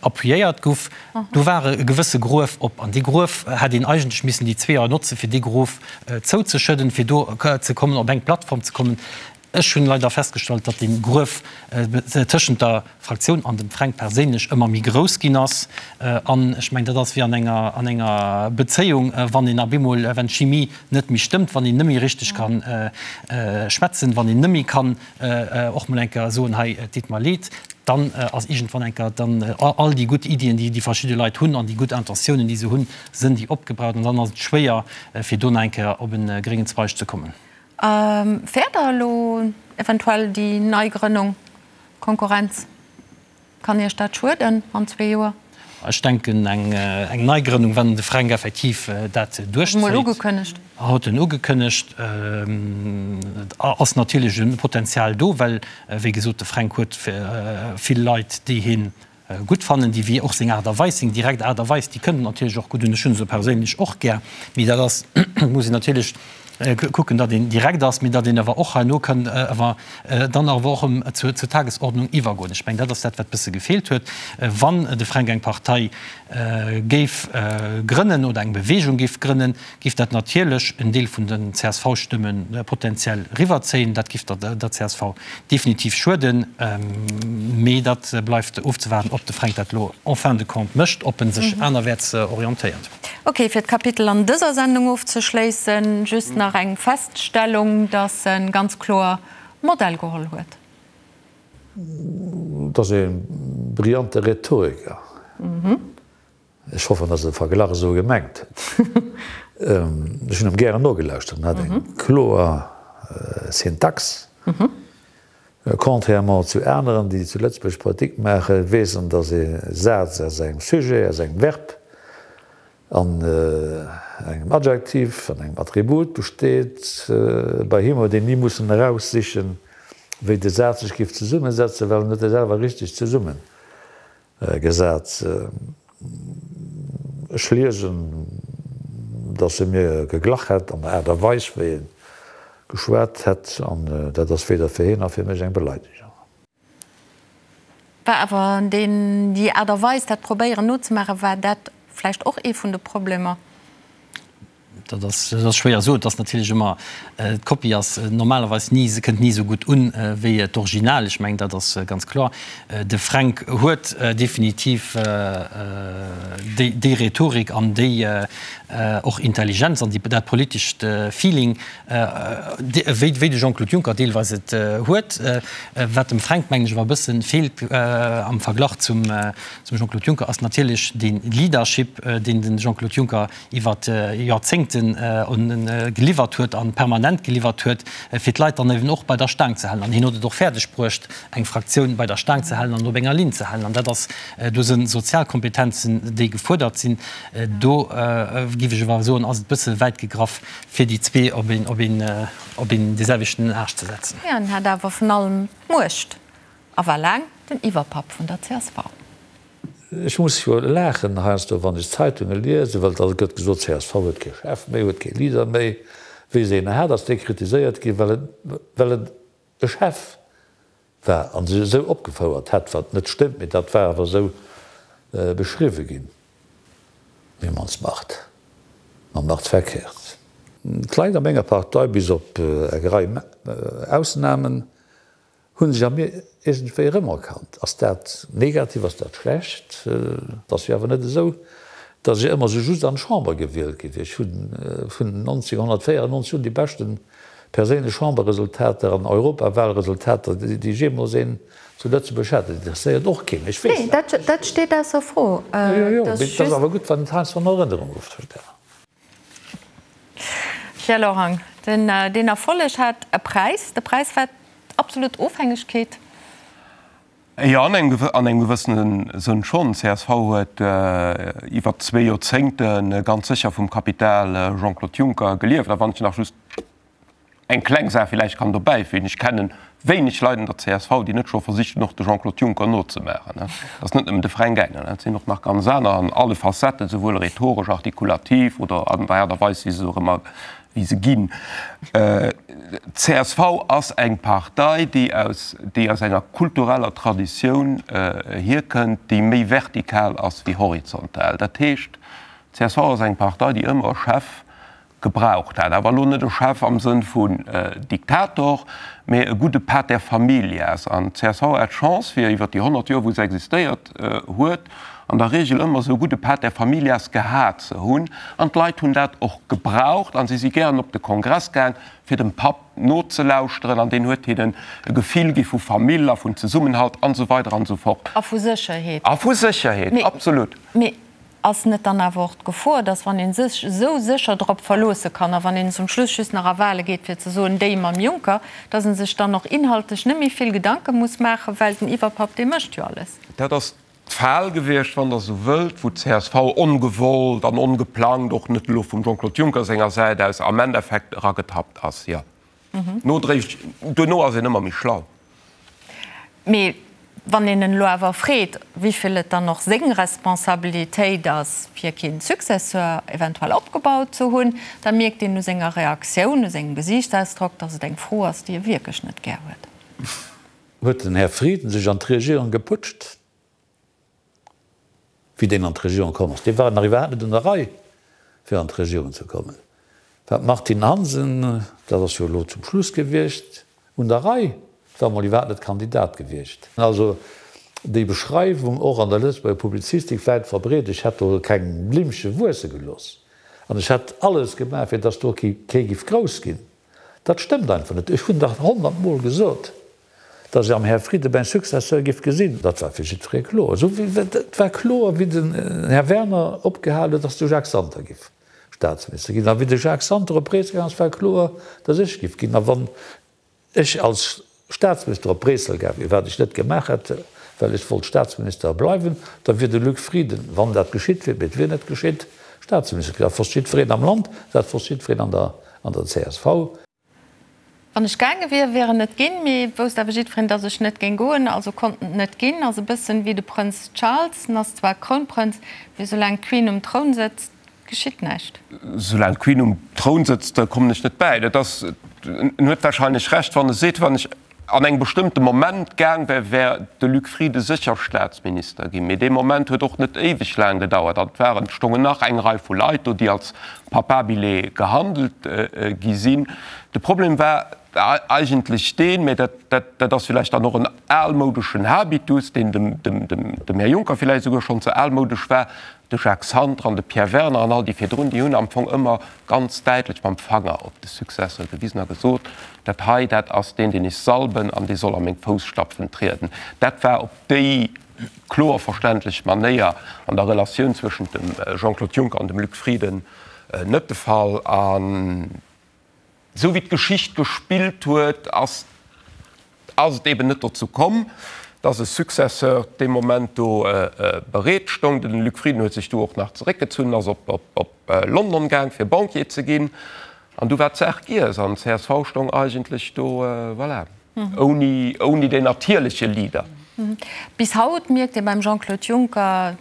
appuyéiert guff. Do war e gewësse Gruef op, an dee Gruef hätt een eigentlech missen déi zwee Joer notzen, fir. fir dee Grof zouzeschëdden, fir do ze kommen, op eng Plattform ze kommen. Ech hunn leider festgestallt, datt dee Gruef tëschent der Fraktioun an dem Fränk perséinlech ëmmer méi grouss ginn ass. An ech mengen, dat ass wéi an enger, an enger Bezéiung, wann een op eemol, wenn d'Chimie net méi stëmmt, wann een net méi richteg ka schwätzen, wann een net méi kann och mol eng Kéier soen, hei, et deet mer leed, dann ass iergendwann eng Kéier dann all déi gutt Iddien, déi déi verschidde Leit hunn an déi gutt Intentiounen, déi se hunn, sënn déi opgebraucht an dann ass et schwéier, fir do nach eng Kéier op e gréngen Zweig ze kommen.
Fäert Der elo eventuell déi Neigrënnung, Konkurrenz? Kann Iech dat schueden an zwee Joer?
Ech denken, eng Neigrënnung, wann de Fränk effektiv dat duerchzéit,
Huet en ugekënnegt.
Huet en ugekënnegt, ass natierlech e Potenzial do, well, wéi gesot, de Fränk huet vill Leit, déi hie gutt fannen, déi wéi och seng Aart a Weis, seng direkt Aart a Weis, déi kënnt natierlech och gutt un. Ech hunn se perséinlech och gär, mee dat ass, muss een natierlech kucken, datt een direkt ass, mee datt een awer och herno kann awer dann awer och erëm zur Tagesordnung iwwergoen. Ech mengen, dat ass dat, wat bësse gefeelt huet. Wann de Fränk eng Partei géif grënnen oder eng Bewegung géif grënnen, giff dat natierlech en Deel vun den CSV-Stëmme potenziell riwwerzéien. Dat giff der csv definitiv schueden. Mee dat bleift ofzewaarden, ob de Fränk dat elo en fin de compte mécht, ob en sech anerwäerts orientéiert.
Ok, fir d'Kapitel an dëser Sendung ofzeschléissen, just nach eng Feststellung, dass e ganz kloer Modell geholl huet.
Et ass e brillante Rhetoriker. Ech hoffen, dass e de Verglach esou gemengt huet. Ech hunn em gären nogelauschtert. En hat eng kloer Syntax. Contrairement zu aneren, déi zu Lëtzebuerg Politik maachen, weess en, dass ee Saz aus engem Sujet, aus engem Verb an engem Adjektiv an engem Attribut besteet. Bei him huet een ni mussen eraussichen, wéi de Saz sech géif zesummesetzen, well en huet e selwer richteg zesummen Gesat. Ech liesen, datt e mir geglach hätt an der Aart a Weis, wéi e geschwat hätt, an dat ass weder fir hien nach fir mech eng Beleidegung.
War awer deen, déi Aart a Weis, dat probéieren nozemaachen, war dat vläicht och ee vun de Problemer?
Dat ass, dat ass schwéier soen. Et ass natierlech ëmmer, d'Kopie ass normalerweis ni, se kënnt ni esou gutt un wéi d'Original. Ech mengen, dat ass ganz kloer. De Fränk huet definitiv déi, déi Rhetorik an déi och Intelligenz an déi, dat politescht Feeling, wéi, wéi de Jean-Claude Juncker deelweis et huet. Wat dem Fränk, mengen ech, awer e bësse feelt am Verglach zum, zum Jean-Claude Juncker, ass natierlech dee Leadership, deen de Jean-Claude Juncker iwwer Joerzéngten geliwwert huet a permanent geliwwert huet, fir d'Leit dann eben och bei der Staang ze halen. An hien huet et och fäerdeg bruecht, eng Fraktioun bei der Staang ze halen an op enger Linn ze halen. An dat ass, do si Sozialkompetenzen, déi gefuerdert sinn. Do géif ech awer soen, ass et e bësse wäit gegraff, fir déi zwee op een, op een, op een deeselwechten Aascht ze setzen.
Hien hat awer vun allem d'Muecht a war laang den Iwwerpapp vun der csv.
Ech muss jo laachen heiansdo, wann ech d'Zeitunge liesen, well da gëtt gesot, csv huet kee Chef méi, huet kee Leader méi. Wéi se een hat, ass dee kritiséiert ginn, well en, well en e Chef war a sech esou opgefouert hätt, wat net stëmmt, mee dat war awer esou beschriwwe ginn. Wie man's macht, man macht's verkehrt. D'Leit a menger Partei, bis op eng Rei Ausnamen, Hu sech a mir iergendwéi erëmerkannt. Ass dat negativ, ass dat schlecht? Et ass jo awer net esou, datt ech ëmmer esou just an d'Chamber gewielt gi wier. Ech hu vun 1994 un déi beschte perséinlech Chamberresultater an Europawalresultater, déi ech jeemools een zu Lëtzebuerg hat. Dat interesséiert och keen, ech weess
dat. Nee, dat steet ausser Fro.
Jo, jo, mee et ass awer gutt, wann et heiansdo an Erënnerung geruff gëtt.
Pierre Lorang, Den Erfolleg hat e Präis. De Präis war d'absolut Ofhängegkeet.
Jo, an engem gewëssene Sënn schonn. Csv huet iwwer zwee Joerzéngte ganz sécher vum Kapital Jean-Claude Juncker gelieft. A wann ech nach just Eng kleng Saach villäicht kann dobäi fügen, Ech kenne wéineg Leit an der csv, déi net scho versicht hunn, och de Jean-Claude Juncker nozemaachen. Dat ass net nëmmen de Fränk Engel, dat sinn och nach ganz aner an alle Facetten, souwuel rhetoresch, artikulativ oder an der Aart a Weis, wéi se och ëmmer, wéi se ginn. Csv ass eng Partei, déi aus, déi aus enger kultureller Traditioun hierkënnt, déi méi vertikal ass wéi horizontal. Dat heescht, csv ass eng Partei, déi ëmmer e Chef. gebraucht hat. Awer elo net e Chef am Sënn vun Diktator, mä e gudde Pater familias. An d'CSV hat d'Chance, fir iwwer déi 100 Joer, wou se existéiert huet, an der Regel ëmmer esou e gudde Pater familias gehat ze hunn. An d'Leit hunn dat och gebraucht a si si gären op de Kongress gaang, fir dem Papp nozelauschteren. An deen huet hinnen e Gefill gi vu Famill a vun Zesummenhalt an esou weider an esou fort.
A vu Sécherheet.
A vu Sécherheet, absolut.
Mee Ass net dann awer och d'Gefor, dass wann ee sech esou sécher drop verloosse kann a wann een zum Schluss just nach a Wahle geet fir ze soen, déi mam Juncker, dass e sech dann och inhaltlech net méi vill Gedanke muss maachen, well den Iwwerpapp dee mécht jo alles?
Dat ass d'Fal gewiescht, wann Der esou wëllt, wou d'CSV ongewollt an ongeplangt, och net elo vum Jean-Claude Juncker senger Säit aus, am Endeffekt eragetappt ass, jo. Nodréiglech, duerno ass een ëmmer méi schlau.
Mee wann een en elo awer freet, wéivill et dann och seng Responsabilitéit ass, fir keen Successeur eventuell opgebaut ze hunn, da mierkt een u senger Reaktioun, u sengem Gesiichtsausdrock, datt et eng Fro ass, déi e wierklech net gär huet.
Huet den Här Frieden sech an d'Regierung geputscht? Wéi deen an d'Regierung komm ass, dee war nach iwwerhaapt net un der Rei, fir an d'Regierung ze kommen, war d'Martine Hansen, dat ass jo elo zum Schluss gewiescht, un der Rei, war emol iwwerhaapt net Kandidat gewiescht. Also déi Beschreiwung, och an der Lëtzebuerger Publizistik wäit verbreet, ech hätt do keng Blimmche wuesse gelooss an ech hätt alles gemaach, fir datt do kee giff grouss ginn, dat stëmmt einfach net. Ech hunn dach honnertmol gesot, Datt ech am Här Frieden mäin Successeur giff gesinn, dat war fir jiddweree kloer. Esou wéi et war kloer, wéi den Här Werner opgehal huet, datt de Jacques Santer giff Staatsminister ginn. A wéi de Jacques Santer op Bréissel gaang ass, war kloer, datt ech giff ginn. A wann ech als Staatsminister op Bréissel gaang wier, wat ech net gemaach hätt, well ech wollt Staatsminister bleiwen, da wier de Luc Frieden, wann dat geschitt wier, mee et wier net geschitt, Staatsminister ginn. Dat wosst jiddwereen am Land, dat wosst jiddwereen an der csv.
Wann ech gaange wier, wier en et ginn, mee et wousst awer jiddwereen, datt ech net géing goen, also konnt en et net ginn. Ass e bëssen wéi de Prënz Charles, en ass zwar Krounprënz, mee soulaang d'Queen um Troun sëtzt, geschitt näischt.
Soulaang d'Queen um Troun sëtzt, kommen ech net bäi. Dat ass, en huet warscheinlech Recht, wann e seet, wann ech an engem bestëmmte Moment gaang wär, wär de Luc Frieden sécher Staatsminister ginn. Mee dee Moment huet och net éiweg laang gedauert an et waren, et stongen nach eng Rei vu Leit do, déi als Papabile gehandelt gi sinn. De Problem war eigentlech deen, mä dat, dat, dat ass villäicht dann och en almoudeschen Habitus, deen dem, dem, dem, dem Här Juncker villäicht esouguer schonn ze almoudesch war, de Jacques Santer an de Pierre Werner an all déi virdrun, déi hunn am Fong ëmmer ganz däitlech mam Fanger op de Successeur gewisen a gesot, Dat hei, dat ass deen, deen ech salben an dee soll a meng Fousstapfen trieden. Dat war op déi kloer verständlech Manéier an der Relatioun zwëschent dem Jean-Claude Juncker an dem Luc Frieden net de Fall. An esou wéi d'Geschicht gespillt huet, ass ass et eben net dozou komm, dass e Successeur dee Moment do bereet stong. De Luc Frieden huet sech du och nach zeréckgezunn, ass op London gaang, fir Banquier ze ginn. An du war d'Saach giess an csv stong eigentlech do, voilà, ouni, ouni deen natierleche Leader.
Bis haut mierkt ee beim Jean-Claude Juncker,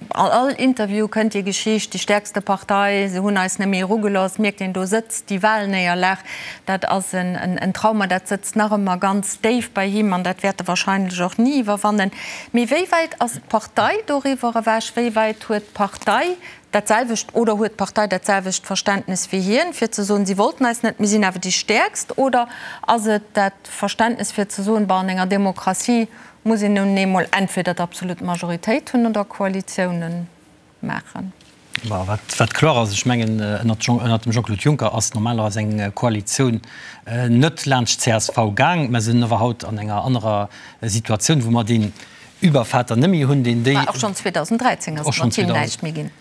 an all Interview kënnt déi Geschicht, déi stäerkste Partei, se hunn eis net méi erugelooss, mierkt een, do sëtzt déi Wahlnéierlag, dat ass en Trauma, dat sëtzt nach ëmmer ganz déif bei him an dat wäert e wahrscheinlech och ni iwwerwannen. Mee wéi wäit ass d'Partei doriwwer ewech? Wéi wäit huet d'Partei dat selwecht oder huet d'Partei dat selwecht Verständnes wéi hien, fir ze soen, si wollten eis net, mir sinn awer déi Stäerkst? Oder ass et dat Verständnes fir ze soen, bon, an enger Demokratie muss een nun eemol entweder d'absolut Majoritéit hunn oder Koalitiounen maachen?
Bon, wat, wat kloer ass, ech mengen, ënnert Jean, ënnert dem Jean-Claude Juncker ass normalerweis eng Koalitioun net laanscht d'CSV gaang. Mer sinn awer haut an enger anerer Situatioun, wou mer deen Übervater net méi hunn, deen déi.
Mä och schonn 2013 ass et mat him näischt méi ginn.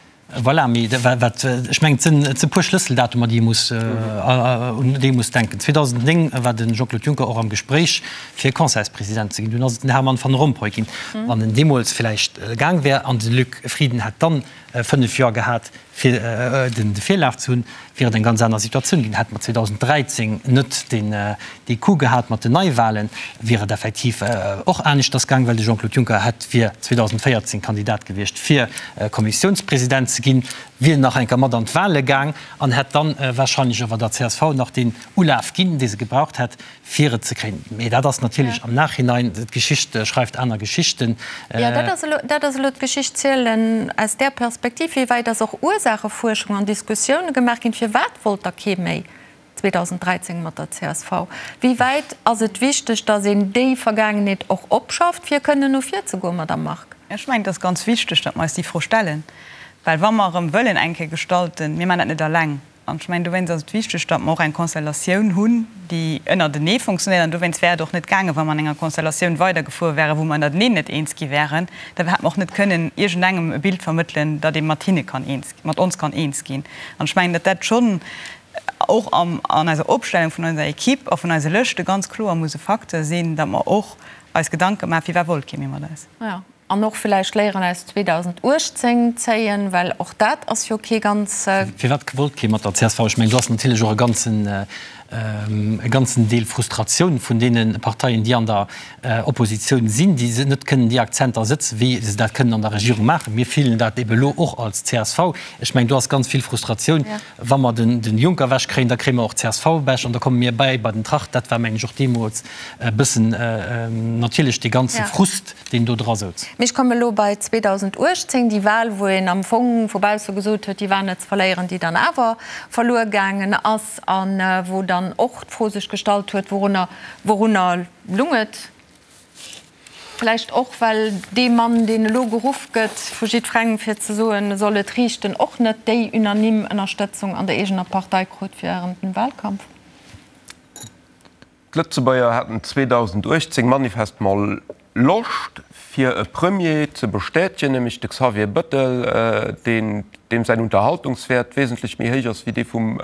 Voilà, mee wat, ech mengen, et sinn, et si puer Schlësseldatumer, déi ee muss, un déi ee muss denken. 2009 war de Jean-Claude Juncker och am Gespréich, fir Conseilspresident ze ginn. Dunn ass et den Herman Van Rompuy ginn. Wann en deemools vläicht gaang wär an de Luc Frieden hätt dann 5 Joer gehat, fir de Virlaf ze hunn, wier et eng ganz aner Situatioun ginn. Hätte mer 2013 net dee Coup gehat mat den Neiwahlen, wier et effektiv och aneschters gaang, well de Jean-Claude Juncker hätt wier 2014 Kandidat gewiescht fir Kommissiounspresident ze. ze ginn, wier en nach eng Kéier mat an d'Wahle gaang an hätt dann wahrscheinlech awer der csv nach deen Ulaf ginn, dee se gebraucht hätt, fir et ze kréien. Mee dat ass natierlech am Nachhinein, d'Geschicht schreift aner Geschichten.
Jo, dat ass elo, dat ass elo d'Geschicht zielen aus där Perspektiv. Wéi wäit ass och Ursaachefuerschung an Diskussioune gemaach ginn? Firwat wollt da kee méi 2013 mat der csv? Wéi wäit ass et wichteg, datt een déi Vergaangenheet och opschafft, fir kënnen no vir ze goen, Madamm Margue?
Ech mengen, et ass ganz wichteg, datt mer eis déi Fro stellen, well wa mer erëm wëllen eng Kéier gestalten, mir maachen dat net eleng, An ech mengen, dowéinst ass et wichteg, datt mer och eng Konstellatioun hunn, déi ënnertenee funktionéiert. An dowéinst wär et och net gaangen, wa mer an enger Konstellatioun weidergefuer wären, wou mer ënnerteneen net eens gi wären. Da hätt mer och net kënnen iergendengem e Bild vermëttelen, datt ee mat hinne kann eens, mat ons kann eens ginn. An ech mengen, datt dat schonn och am, an eiser Opstellung vun eiser Equipe a vun eise Lëschte ganz kloer muss e Facteur sinn, datt mer och eis Gedanke maachen, firwat wollt kee méi mat eis.
An och villäicht Léieren aus 2018 zéien, well och dat ass jo kee ganz.
Firwat wollt kee mat der csv? Ech mengen, do ass natierlech och e ganzen, e ganzen Deel Frustratioun vun deene Parteien, déi an der Oppositioun sinn, déi net kënnen déi Akzenter sëtzen, wéi se dat kënnen an der Regierung maachen. Mir fillen dat ebe lo och als csv. Ech mengen, do ass ganz vill Frustratioun. Wa mer den Juncker ewech kréien, da kréie mer och d'CSV ewech an da komme mir bäi bei den Tracht. Dat war, mengen ech, och deemools e bëssen natierlech dee ganze Frust, deen do dra souz.
Mee ech komme elo bei 2018, déi Wahl, wou een am Fong vu bausse gesot huet, déi war net ze verléieren, déi dann awer verluer gaangen ass a wou dann och d'Fro sech gestallt huet, wourunner, wourunner lung et? Vläicht och, well dee Mann, deen elo geruff gëtt vu jiddwerengem, fir ze soen, e soll et riichten, och net déi unanime Ënnerstëtzung an der eegener Partei krut während dem Wahlkampf.
D'Lëtzebuerger haten 2018 manifestement Loscht, fir e Premier ze bestätegen, nämlech de Xavier Bëttel, deen, deem säin Unterhaltungswäert wesentlech méi héich ass wéi dee vum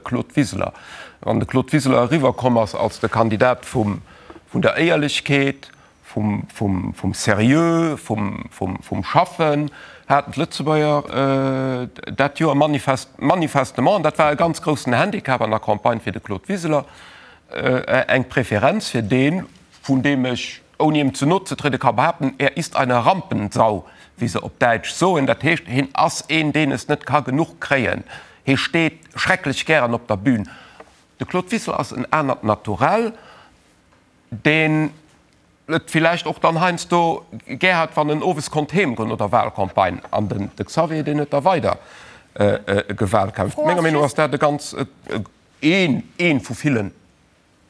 Claude Wiseler. Wann de Claude Wiseler eriwwerkomm ass als de Kandidat vum vun der Éierlechkeet, vum Seriö, vum Schaffen haten d'Lëtzebuerger dat Joer manifestement, an dat war e ganz groussen Handicap an der Campagne fir de Claude Wiseler, eng Preferenz fir deen, vun deem ech, ouni em ze no ze trieden, ka behaapten, Er ist eine Rampensau, wéi se op Däitsch soen. Dat heescht, hien ass een, deen es net ka genuch kréien. Hie steet schrecklech gären op der Bühn. De Claude Wiseler ass en anert Naturell, deen et villäicht och dann heiansdo gär hat, wann en owes konnt heemgoen no der Wahlcampagne. An den de Xavier, deen huet da weider gewalkämpft. Menger Meenung no ass dat e ganz, een, ee vu ville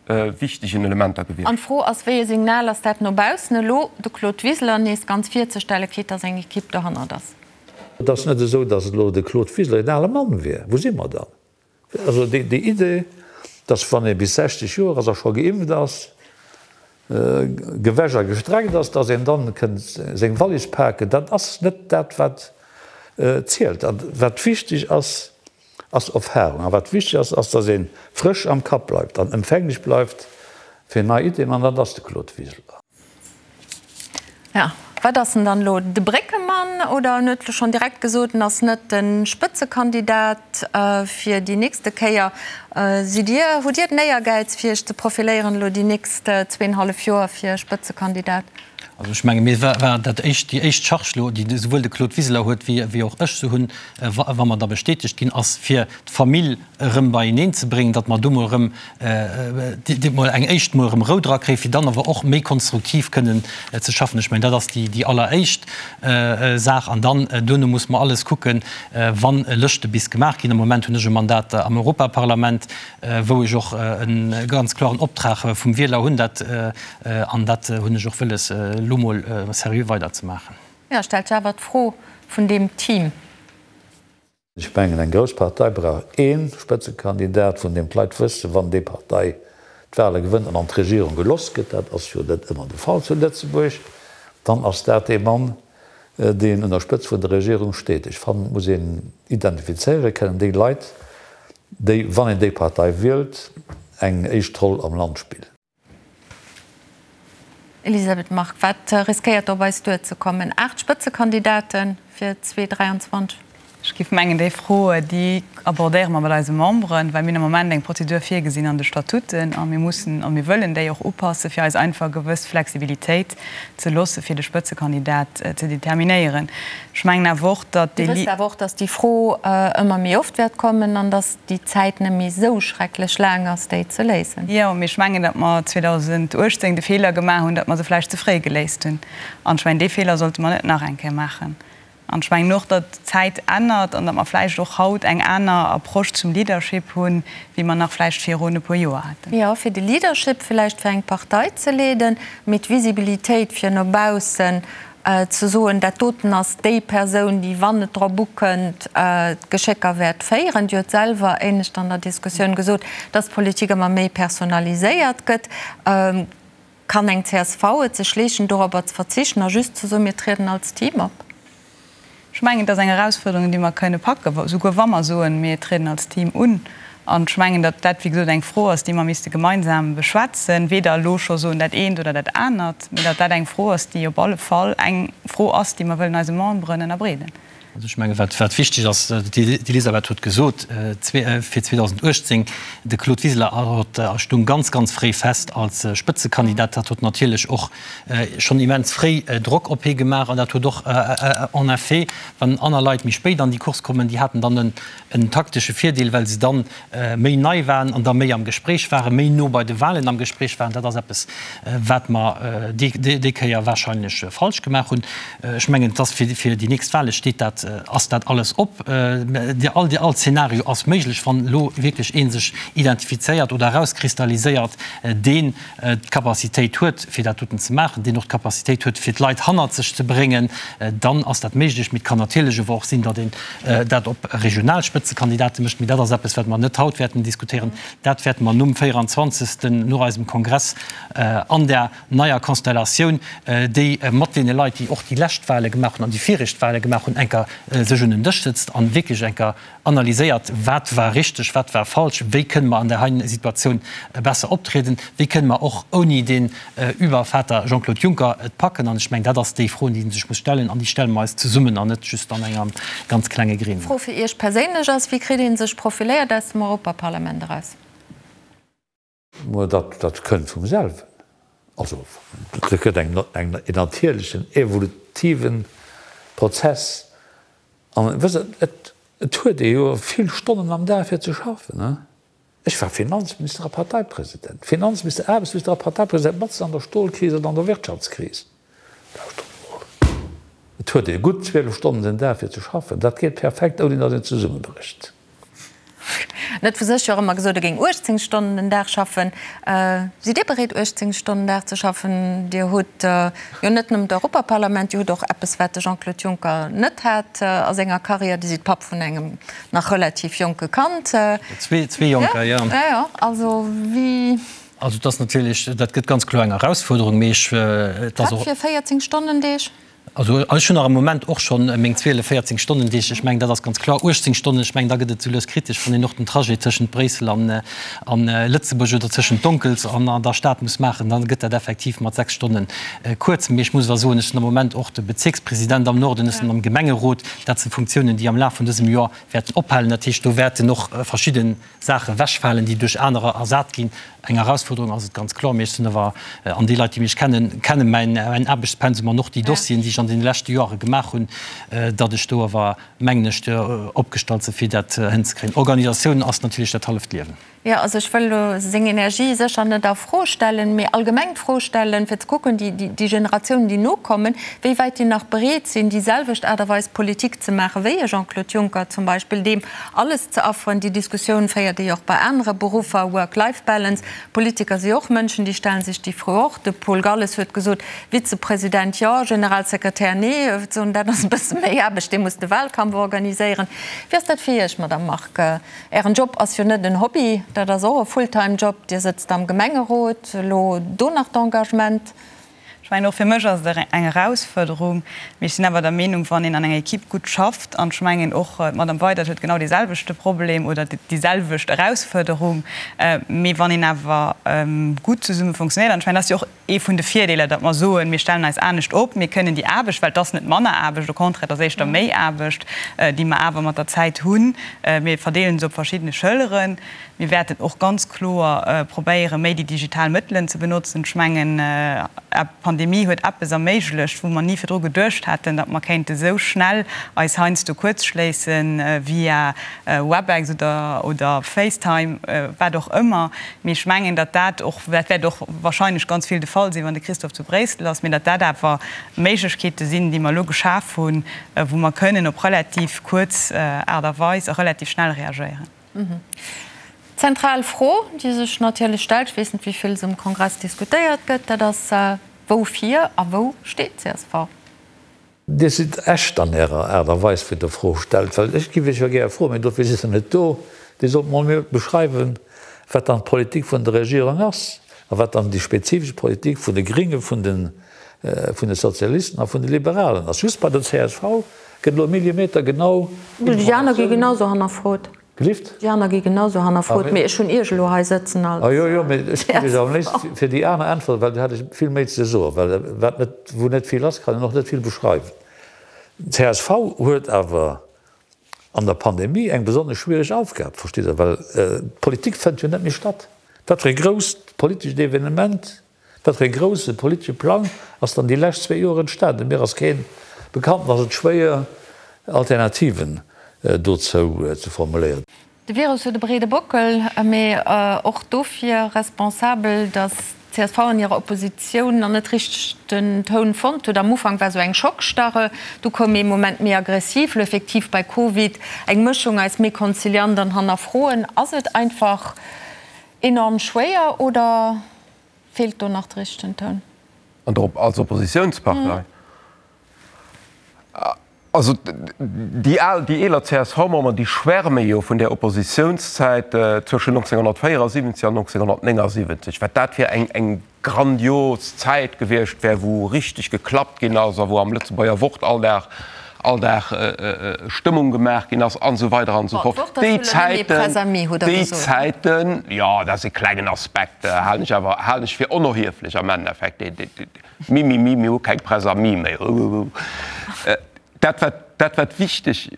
wichtegen Elementer gewiescht.
An d'Fro ass, wéi e Signal ass dat no baussen elo, de Claude Wiseler nees ganz virzestellen, quitte dass eng Equipe dohannert ass?
Et ass net esou, dass elo de Claude Wiseler een ale Mann wier. Wou si mer dann? Also déi Idee, dass wann ee bis 60 Joer ass a scho geimpft ass, gewäsch a gestreckt ass, dass een dann kënnt seng Wallis paken, dat ass net dat wat zielt. A wat wichteg ass, ass Erfahrung. A wat wichteg ass, ass dass ee frësch am Kapp bleift an empfänglech bleift fir nei Ideen, an dat ass de Claude Wiseler.
Ja, wat ass en dann elo? De Bréckemann? Oder en huet elo schonn direkt gesot, en ass net de Spëtzekandidat fir déi nächste Kéier. Sidd Dir, hutt Dir den Éiergäiz fir Iech ze profiléieren elo déi nächst zweeënhallef Joer fir Spëtzekandidat?
Also ech menge mir war dat éischt, déi éischt Charge elo, déi esouwuel de Claude Wiseler huet wéi wéi och ech se hunn, wa mer da bestätegt ginn, ass fir d'Famill erëm beieneen ze bréngen, datt mer do mol erëm mol eng éischt mol erëm Rou dra kréien, fir dann awer och méi konstruktiv kënnen ze schaffen. Ech mengen, dat ass déi alleréischt Saach. An dann duerno muss mer alles kucken, wa Lëschte bis gemaach ginn. Am Moment hunn ech e Mandat am Europaparlament, wou ech och e ganz klaren Optrag vum Wieler hunn, dat, an dat hunn ech och wëlles, elo mol seriö weiderzemaachen.
Jo, stellt sech awer d'Fro vun deem Team.
Ech mengen, eng grouss Partei brauch ee Spëtzekandidat, vun deem d'Leit wëssen, wann déi Partei d'Wahle gewënnt an an d'Regierung geloss gëtt, dat ass jo net ëmmer de Fall zu Lëtzebuerg, dann ass dat dee Mann, deen un der Spëtzt vun der Regierung steet. Ech fannen, et muss een identifizéiere kënnen, déi Leit, déi, wann een déi Partei wielt, eng éischt Roll am Land spillen.
Elisabeth Margue, wat riskéiert do op eis duerzekommen? 8 Spëtzekandidate fir 2023?
Ech géif mengen, déi Fro, déi abordéiere mer mat eise Memberen, well mir hunn am Moment eng Prozedur virgesinn an de Statuten a mir mussen a mir wëllen déi och upassen, fir eis einfach e gewëss Flexibilitéit ze loosse fir de Spëtzekandidat ze determinéieren. Ech mengen awer och, datt
Dir
déi.
wësst awer och, datt déi Fro ëmmer méi oft wäert kommen an datt déi Zäit net méi esou schrecklech laang ass, déi ze léisen.
Jo, mee ech mengen, datt mer 2018 de Feeler gemaach hunn, datt mer se vläicht ze fréi geléist hunn. An ech mengen, dee Feeler sollte mer net nach eng Kéier maachen. An ech mengen och, datt d'Zäit ännert an datt mer vläicht och haut eng aner Approche zum Leadership hunn, wéi mer nach vläicht virun e puer Joer haten.
Jo, fir de Leadership vläicht fir eng Partei ze leeden, mee d'Visibilitéit fir no baussen ze soen, dat doten ass déi Persoun, déi, wann et drop ukënnt, d'Geschécker wäert féieren. Dir hutt selwer éinescht an der Diskussioun gesot, datt d'Politik ëmmer méi personaliséiert gëtt. Kann eng csv et sech leeschten, dorobber ze verzichten a just ze soen, mir trieden als Team op?
Ech mengen, et ass eng Erausfuerderung, déi mer kënne packen, souguer wa mer soen, mir trieden als Team un. An ech mengen, datt dat, wéi gesot, eng Fro ass, déi mer misste gemeinsam beschwätzen, weder elo scho soen dat eent oder dat anert, mee datt dat eng Fro ass, déi op alle Fall eng Fro ass, déi mer wëllen eise Memberen ënnerbreeden.
Also ech menge wat wat wichteg ass, d'Elisabeth huet gesot, fir 2018, de Claude Wiseler huet stung ganz, ganz fréi fest als Spëtzekandidat. Dat huet natierlech och schonn immens fréi Drock op hie gemaach an dat huet och en effet, wann aner Leit méi spéit an déi Course kommen, déi haten dann en taktesche Virdeel, well se dann méi nei waren an da méi am Gespréich waren, méi no bei de Wahlen am Gespréich waren. Dat ass eppes, wat mer déi Kéier wahrscheinlech falsch gemaach hunn. Ech mengen, et ass fir déi nächst Wahle steet dat, ass dat alles op. All, all Zeenario ass méiglech, wann elo wierklech ee sech identifizéiert oder erauskristalliséiert, deen d'Capacitéit huet, fir dat doten ze maachen, deen och d'Capacitéit huet, fir d'Leit hannert sech ze bréngen, dann ass dat méiglech. Mee et kann natierlech awer och sinn, datt een dat op regional Spëtzekandidate mécht. Mee dat ass eppes, wat mer net haut wäerten diskutéieren. Dat wäerte mer nom 24. no eisem Kongress an där neier Konstellatioun, déi mat deene Leit, déi och déi lescht Wahle gemaach hunn an déi viregt Wahle gemaach hunn, enker sech un en Dësch sëtzt a wierklech enker analyséiert, wat war richteg, wat war falsch, wéi kënne mer an där heiten Situatioun besser optrieden, wéi kënne mer och ouni den Übervater Jean-Claude Juncker et packen. An ech mengen, dat ass déi Fro, déi ee sech muss stellen, an déi stelle mer eis zesummen an net just an engem ganz klenge Gremium.
D'Fro fir Iech perséinlech ass, Wéi kritt ee sech profiléiert aus dem Europaparlament eraus?
Mä dat, dat kënnt vum selwen. Also, dat gëtt eng, eng, en natierlechen, evolutive Prozess. An wësst Der, et, et huet ee jo vill Stonnen am Dag fir ze schaffen, ne? Ech war Finanzminister a Parteipresident, Finanzminister, Aarbechtsminister a Parteipresident, matzen an der Stolkris an an der Wirtschaftskris. Lauschtert emol, et huet ee gutt 12 Stonnen den Dag fir ze schaffen, dat geet perfekt, ouni datt een zesummebrécht.
En huet vu sech jo och ëmmer gesot, e géing 18 Stonnen den Dag schaffen. Sidd Dir bereet, 18 Stonnen den Dag ze schaffen? Dir hutt jo net nëmmen d'Europaparlament, Dir hutt och eppes, wat de Jean-Claude Juncker net hat a senger Karriär, Dir sidd Papp vun engem nach relativ jonke Kand.
Zwee Jonker, jo.
Jo, jo, also wéi.
Also et ass natierlech, dat gëtt ganz kloer eng Erausfuerderung, mee ech, et ass
och. Wat fir 14 Stonnendeeg?
Also ech hunn nach am Moment och schonn meng 12, 14 Stonnendeeg. Ech mengen, dat ass ganz kloer. 18 Stonnen, ech mengen, da gëtt et sou lues kritesch, wann een och den Trajet tëschent Bréissel an an Lëtzebuerg oder tëschent Donkels an an der Stad muss maachen, da gëtt dat effektiv mat 6 Stonne kuerz. Mee ech muss awer soen, ech sinn am Moment och de Bezierkspresident am Norden, ech sinn am Gemengerot. Dat si Funktiounen, déi am Laf vun dësem Joer wäerten ophalen. Dat heescht, do wäerten och verschidde Saache wechfalen, déi duerch anerer ersat ginn. Eng Erausfuerderung ass et ganz kloer, mee ech sinn awer, an déi Leit, déi mech kennen, kenne mäin Aarbechtspensum an och déi Dossieren, déi ech an deene leschte Joere gemaach hunn, datt ech do awer, mengen ech, opgestallt sinn, fir dat hënzekréien. Organisatioun ass natierlech dat halleft Liewen.
Jo, also ech wëll elo seng Energie sécher net a Fro stellen, mee allgemeng d'Fro stellen, fir ze kucken, déi Generatiounen, déi nokommen, wéi wäit déi nach bereet sinn, déi selwecht Aart a Weis Politik ze maachen, wéi e Jean-Claude Juncker zum Beispill, deem Alles ze afferen. Déi Diskussioun féiert ee jo och bei anere Beruffer, Work-Life-Balance. Politiker si och Mënschen, déi stellen sech déi Fro och. De Paul Galles huet gesot, Vizepresident jo, Generalsekretär nee. Dat ass e bësse méi Aarbecht, dee muss de Wahlkampf organiséieren. Wéi ass dat fir Iech, Madamm Margue? Ären Job ass jo net en Hobby, dat ass och e Fulltime-Job. Dir sëtzt am Gemengerot, elo do nach d'Engagement.
Ech mengen, och fir mech ass et eng Erausfuerderung, mee ech sinn awer der Meenung, wann een an enger Equipe gutt schafft, an ech mengen och d'Madame Weydert huet genau deeselwechte Problem oder déi selwecht Erausfuerderung, mee wann een awer gutt zesumme funktionéiert, an ech mengen, dat ass jo och. Ee vun de Virdeeler, datt mer soen, mir stellen eis anescht op, mir kënnen déi Aarbecht, well et ass net manner Aarbecht, au contraire, et ass éischter méi Aarbecht, déi mer awer mat der Zäit hunn, mir verdeelen se op verschiddene Schëlleren. Mir wäerten och ganz kloer probéieren, méi déi digital Mëttelen ze benotzen. Ech mengen, d'Pandemie huet eppes erméiglecht, wou mer ni virdru geduecht hätten, datt mer kéinte sou schnell eis heiansdo kuerzschléissen via Webex oder Facetime, wat och ëmmer. Mee ech mengen, datt dat och, dat wäert och wahrscheinlech ganz vill de Fall sinn, wann de Christophe zu Bréissel ass, mee datt dat awer Méiglechkeete sinn, déi mer elo geschaf hunn, wou mer kënnen op relativ kuerz Aart a Weis a relativ schnell reagéieren.
D'zentral Fro, déi sech natierlech stellt, ech weess net, wéi vill se um Kongress diskutéiert gëtt, dat ass, Woufir a wou steet d'CSV?
Dir sidd echt an Ärer Aart a Weis, wéi Der Fro stellt, well ech giff Iech jo gär froen, mee dofir sidd Der net do, Dir sollt mol mir beschreiwen, wat dann d'Politik vun der Regierung ass a wat dann déi spezifesch Politik vun de Gringe, vun de vun de Sozialisten a vun de Liberalen ass. Just bei der csv gëtt elo millimetergenau
Déi aner gi
genau sou
hannerfrot.
Gelift?
Déi aner gi genau sou hannerfrot, mee ech hunn Iech elo hei sëtzen als
Ah jo, jo, mee ech géif Iech am léifsten fir déi aner äntweren, well do hätt ech vill méi ze soen, well wat net, wou net vill ass, kann een och net vill beschreiwen. Csv huet awer an der Pandemie eng besonnesch schwiereg Aufgab, verstitt Der, well d'Politik fënnt jo net méi statt. Wat fir e grousst politescht Evenement Wat fir e grousse politesche Plang ass dann déi lescht zwéi Joer entstanen? Mir ass keen bekannt an ass et schwéier Alternativen dozou ze formuléieren.
De Virus huet e breede Bockel, mee och dofir responsabel, datt d'CSV an hirer Oppositioun nach net richteg den Toun fonnt huet. Am Ufank war sou eng Schockstarre, du koum ee Moment méi aggressiv, lo effektiv bei Covid eng Mëschung aus méi konziliant an hannerfroen. Ass et einfach enorm schwéier oder Feelt do nach de richtegen Toun?
An der als Oppositiounspartei? Also déi al, déi eeler CSV-Memberen, déi schwärme jo vun där Oppositiounszäit zwëschen 1974 an 1979, wat dat fir eng eng grandios Zäit gewiescht wär, wou richteg geklappt ginn ass a wou am Lëtzebuerger Wort all Dag all Dag Stëmmung gemaach ginn ass an esou weider an esou fort. Déi Zäiten, déi Zäiten, jo, dat ass e klengen Aspekt, halen ech awer, halen ech fir onerhieflech am Endeffekt. Mimimi, mir hu keng Presse amie méi. Dat wat, dat wat wichteg,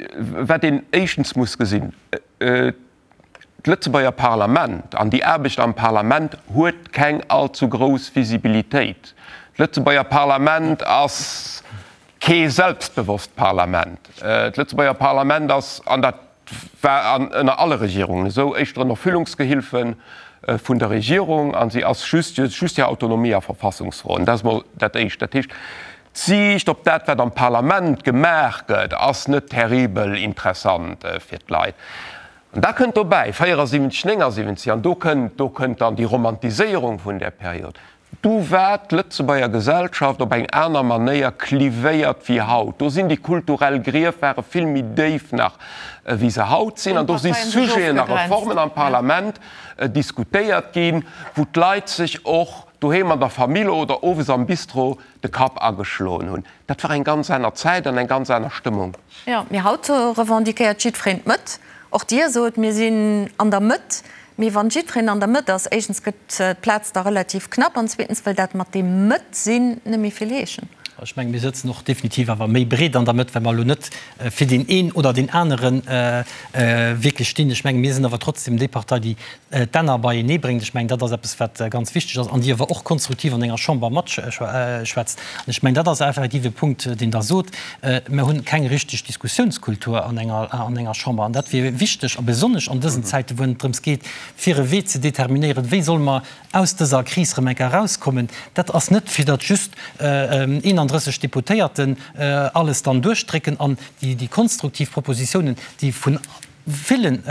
wat een éischtens muss gesinn, D'Lëtzebuerger Parlament an déi Aarbecht am Parlament huet keng allzu grouss Visibilitéit. D'Lëtzebuerger Parlament ass kee selbstbewosst Parlament. D'Lëtzebuerger Parlament ass, an dat war an ënner alle Regierungen esou, éischter en Erfüllungsgehilfe vun der Regierung a si ass just just hir Autonomie a Verfassungsfroen. Dat ass mol dat Éischt. Dat heescht, d'Siicht op dat, wat am Parlament gemaach gëtt, ass net terribel interessant fir d'Leit. An da kënnt dobäi, 74, 79, an do kënnt, do kënnt dann déi Romantiséierung vun där Period, du war d'Lëtzebuerger Gesellschaft op eng aner Manéier clivéiert wéi haut. Do sinn déi kulturell Grief ware vill méi déif nach wéi se haut sinn. An do si Sujeten a Reformen am Parlament diskutéiert ginn, wou d'Leit sech och doheem an der Famill oder owes am Bistro de Kapp ageschloen hunn. Dat war eng ganz aner Zäit an eng ganz aner Stëmmung.
Jo, mee haut revendiquéiert jiddwereen d'Mëtt. Och Dir sot, mir sinn an der Mëtt. Mee wann jiddwereen an der Mëtt ass, éischtens gëtt d'Plaz da relativ knapp an zweetens wëll dat mat deem Mëtt-sinn net méi vill heeschen.
Ech mengen, mir sëtzen och definitiv awer méi breet an der Mëtt, well mer elo net fir deen een oder deen anere wierklech stinn. Ech mengen, mir sinn awer trotzdem déi Partei, déi d'Enner beienee bréngt. Ech mengen, dat ass eppes, wat ganz wichteg ass an déi awer och konstruktiv an enger Chamber matschwätzt. An ech mengen, dat ass effektiv e Punkt, deen Der sot. Mir hunn keng richteg Diskussiounskultur an enger, an enger Chamber. An dat wier wichteg, a besonnesch an dësen Zäiten, wou et drëms geet, fir e Wee ze determinéieren, wéi solle mer aus dëser Kris erëm eng Kéier erauskommen. Dat ass net, fir datt just 31 Deputéierten alles dann duerchdrécken an déi konstruktiv Propositionen, déi vun villen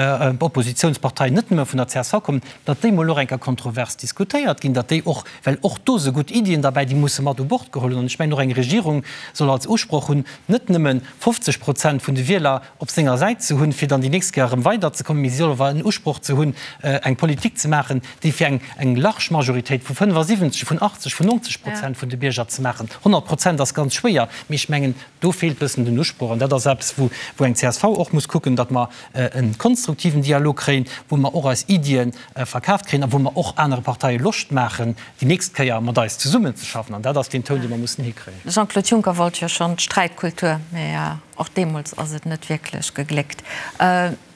Oppositionsparteien, net nëmme vun der csv kommen, datt déi mol och eng Kéier kontrovers diskutéiert ginn, datt déi och, well och do si gutt Iddien derbäi, déi musse mat u Bord geholl hunn. An ech mengen, och eng Regierung soll als Usproch hunn, net nëmme 50 Prozent vun de Wieler op senger Säit ze hunn, fir dann déi nächst Kéier erëm weiderzekommen, mee si soll awer en Usproch ze hunn, eng Politik ze maachen, déi fir eng eng large Majoritéit vu 75, vun 80, vun 90 Prozent vun de Bierger ze maachen. 100 Prozent ass ganz schwéier, mee ech mengen, Do feelt bëssen den Usproch an dat ass eppes, wou wou eng csv och muss kucken, datt mer e konstruktiven Dialog kréien, wou mer och eis Iddie verkaaft kréien a wou mer och anere Parteie Loscht maachen, déi nächst Kéier mat eis zesummenzeschaffen. An dat ass deen Toun, dee mer mussen hikréien.
De Jean-Claude Juncker wollt jo schonn d'Sträitkultur, mä och deemools ass et net wierklech gegléckt.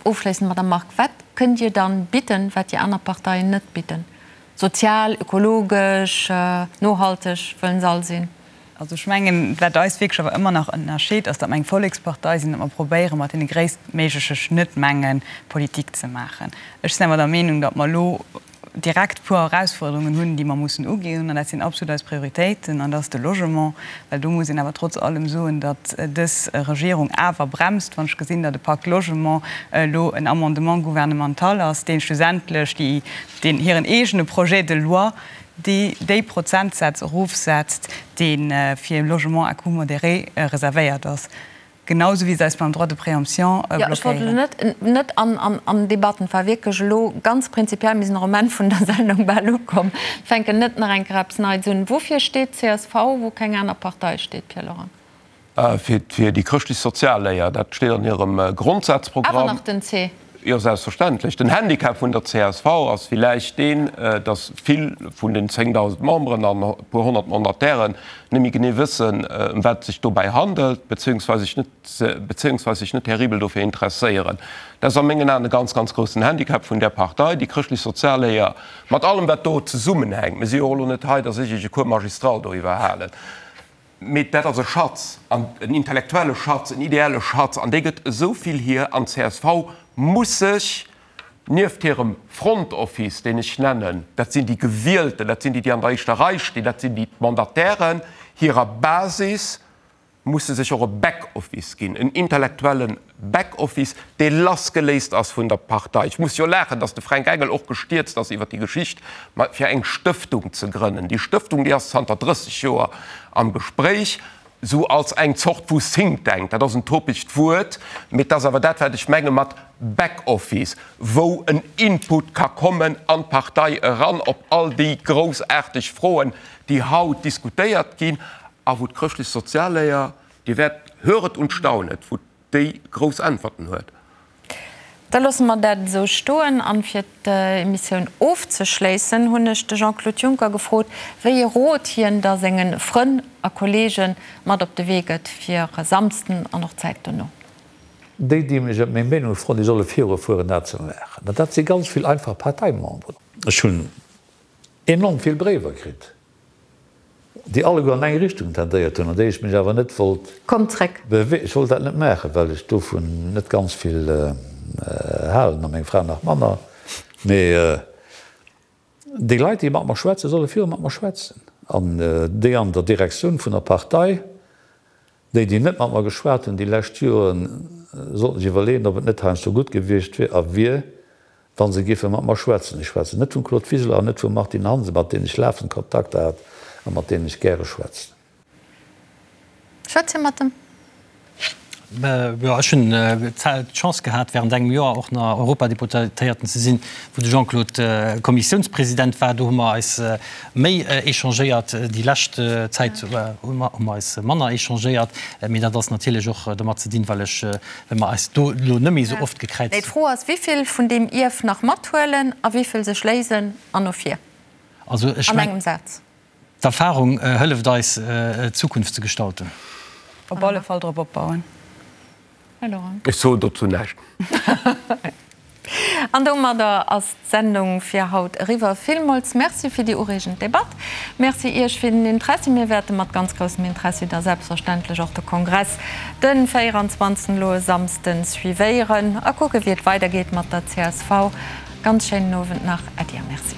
Ofschléissend, Madame Margue, wat kënnt Dir dann bidden, wat déi aner Parteien net bidden? Sozial, ökologesch, nohalteg wëllen se all sinn.
Also ech mengen, wat eis wierklech awer ëmmer nach ënnerscheet, ass, datt mer eng Vollekspartei sinn, datt mer probéiere mat deene gréisstméigleche Schnëttmenge Politik ze maachen. Ech sinn awer der Meenung, datt mer elo direkt puer Erausfuerderungen hunn, déi mer mussen uginn, an dat sinn absolut eis Prioritéiten, an dat ass de Logement, well do muss een awer trotz allem soen, datt dës Regierung awer bremst, wann ech gesinn, datt e Pacte Logement elo en Amendement gouvernemental ass, dee schlussendlech déi, deen hiren eegene Projet de loi déi déi Prozentsätz erofsetzt, dee fir Logement à coût modéré reservéiert ass. Genau esou wéi se eis beim Droit de préemption
blockéieren. Jo, ech wollt elo net, net an, an Debatten. Et war wierklech elo ganz prinzipiell, mir sinn och um Enn vun der Sendung bal ukomm, fänken net nach eng Kéier eppes Neits un. Woufir steet csv, wou keng aner Partei steet, Pierre Lorang?
Fir, fir déi chrëschtlech-sozial Léier. Dat steet an hirem Grondsazprogramm.
Awer nach den C.
Jo, selbstverständlech. Den Handicap vun der csv ass villäicht deen, datt vill vun den 10.000 Memberen an e puer 100 Mandatairen net méi genee wëssen, ëm wat et sech dobäi handelt, beziehungsweise sech net, beziehungsweise sech net terribel dofir interesséieren. Dat ass a mengen Aen e ganz, ganz groussen Handicap vun där Partei, déi chrëschtlech-sozial Léier, mat allem wat do zesummenhänkt. Mir si jo och elo net hei, datt ech Iech e Cours magistral doriwwer halen. Mee dat ass e Schatz, an en intellektuelle Schatz, en ideelle Schatz, an dee gëtt esou vill hier. An csv muss sech nieft hirem Front Office, deen ech nennen, dat sinn déi Gewielten, dat sinn déi, déi an der éischter Rei stinn, dat sinn déi Mandatairen, hirer Basis, muss se sech och e Back Office ginn, en intellektuelle Back Office, dee lassgeléist ass vun der Partei. Ech muss jo laachen, datt de Fränk Engel och gestierzt ass iwwer déi Geschicht, fir eng Stëftung ze grënnen. Déi Stëftung, déi ass zanter 30 Joer am Gespréich, esou als eng Zort vu Think Tank. Dat ass en topegt Wuert, mee et ass awer dat, wat ech menge mat Back Office, wou en Input ka kommen an d'Partei eran op all déi groussaarteg Froen, déi haut diskutéiert ginn a wou d'chrëschtlech Sozialléier, Dir wäert höret und staunet, wou déi grouss Äntwerten huet.
Da loosse mer dat esou stoen. An fir d'Emissioun ofzeschléissen, hunn ech de Jean-Claude Juncker gefrot, wéi ee Rot hien da senge Frënn a Kollege mat op de Wee gëtt fir e Samsden an och d'Zäit dono.
Déi, déi mech ëm meng Meenung froen, déi solle virufueren, dat ze maachen. An dat si ganz vill einfach Parteimemberen. Ech hunn enorm vill Bréiwer kritt. Déi alleguer an eng Richtung tendéiert hunn, an déi ech mech awer net wollt
Komm zréck.
Bewe. Ech wollt dat net maachen, well ech dovun net ganz vill halen, a meng Fra nach manner. Mee déi Leit, déi mat mer schwätzen, solle viru mat mer schwätzen. An déi an der Direktioun vun der Partei, déi, déi net mat mer geschwat hunn déi lescht Joren, sollten sech iwwerleeën, ob et net heiansdo gutt gewiescht wier a wier, Wa se géife mat mer schwätzen, ech schwätzen net vum Claude Wiseler an net vum Martine Hansen, mat deenen ech lafend Kontakter hat a mat deenen ech gäre schwätzen.
Schwätzt Dir mat em?
Jo, ech hunn d'Chance gehat, während engem Joer och nach Europadeputéierten ze sinn, wou de Jean-Claude Kommissiounspresident war. Do hu mer eis méi échangéiert. Déi lescht Zäit hu mer eis manner échangéiert. Mee dat ass natierlech och domat ze dinn, well ech Well mer eis do elo net méi esou oft gekräizt
hunn. D'Fro ass, Wivill vun deem Ierf nach mathuelen a wivill sech léisen an no vir?
Also ech
An engem Saz.
D'Erfahrung hëlleft eis, d'Zukunft ze gestalten.
Op alle Fall drop opbauen.
Här Lorang. Ech soen dozou näischt.
An domadder ass d'Sendung fir haut eriwwer. Villmools Merci fir déi ureegend Debatt. Merci Iech fir den Interessi. Mir wäerte mat ganz groussem Interessi da selbstverständlech och de Kongress den 24. elo e Samsden suivéieren a kucke wéi et weidergeet mat der csv. Ganz schéinen Owend nach. Äddi a Merci.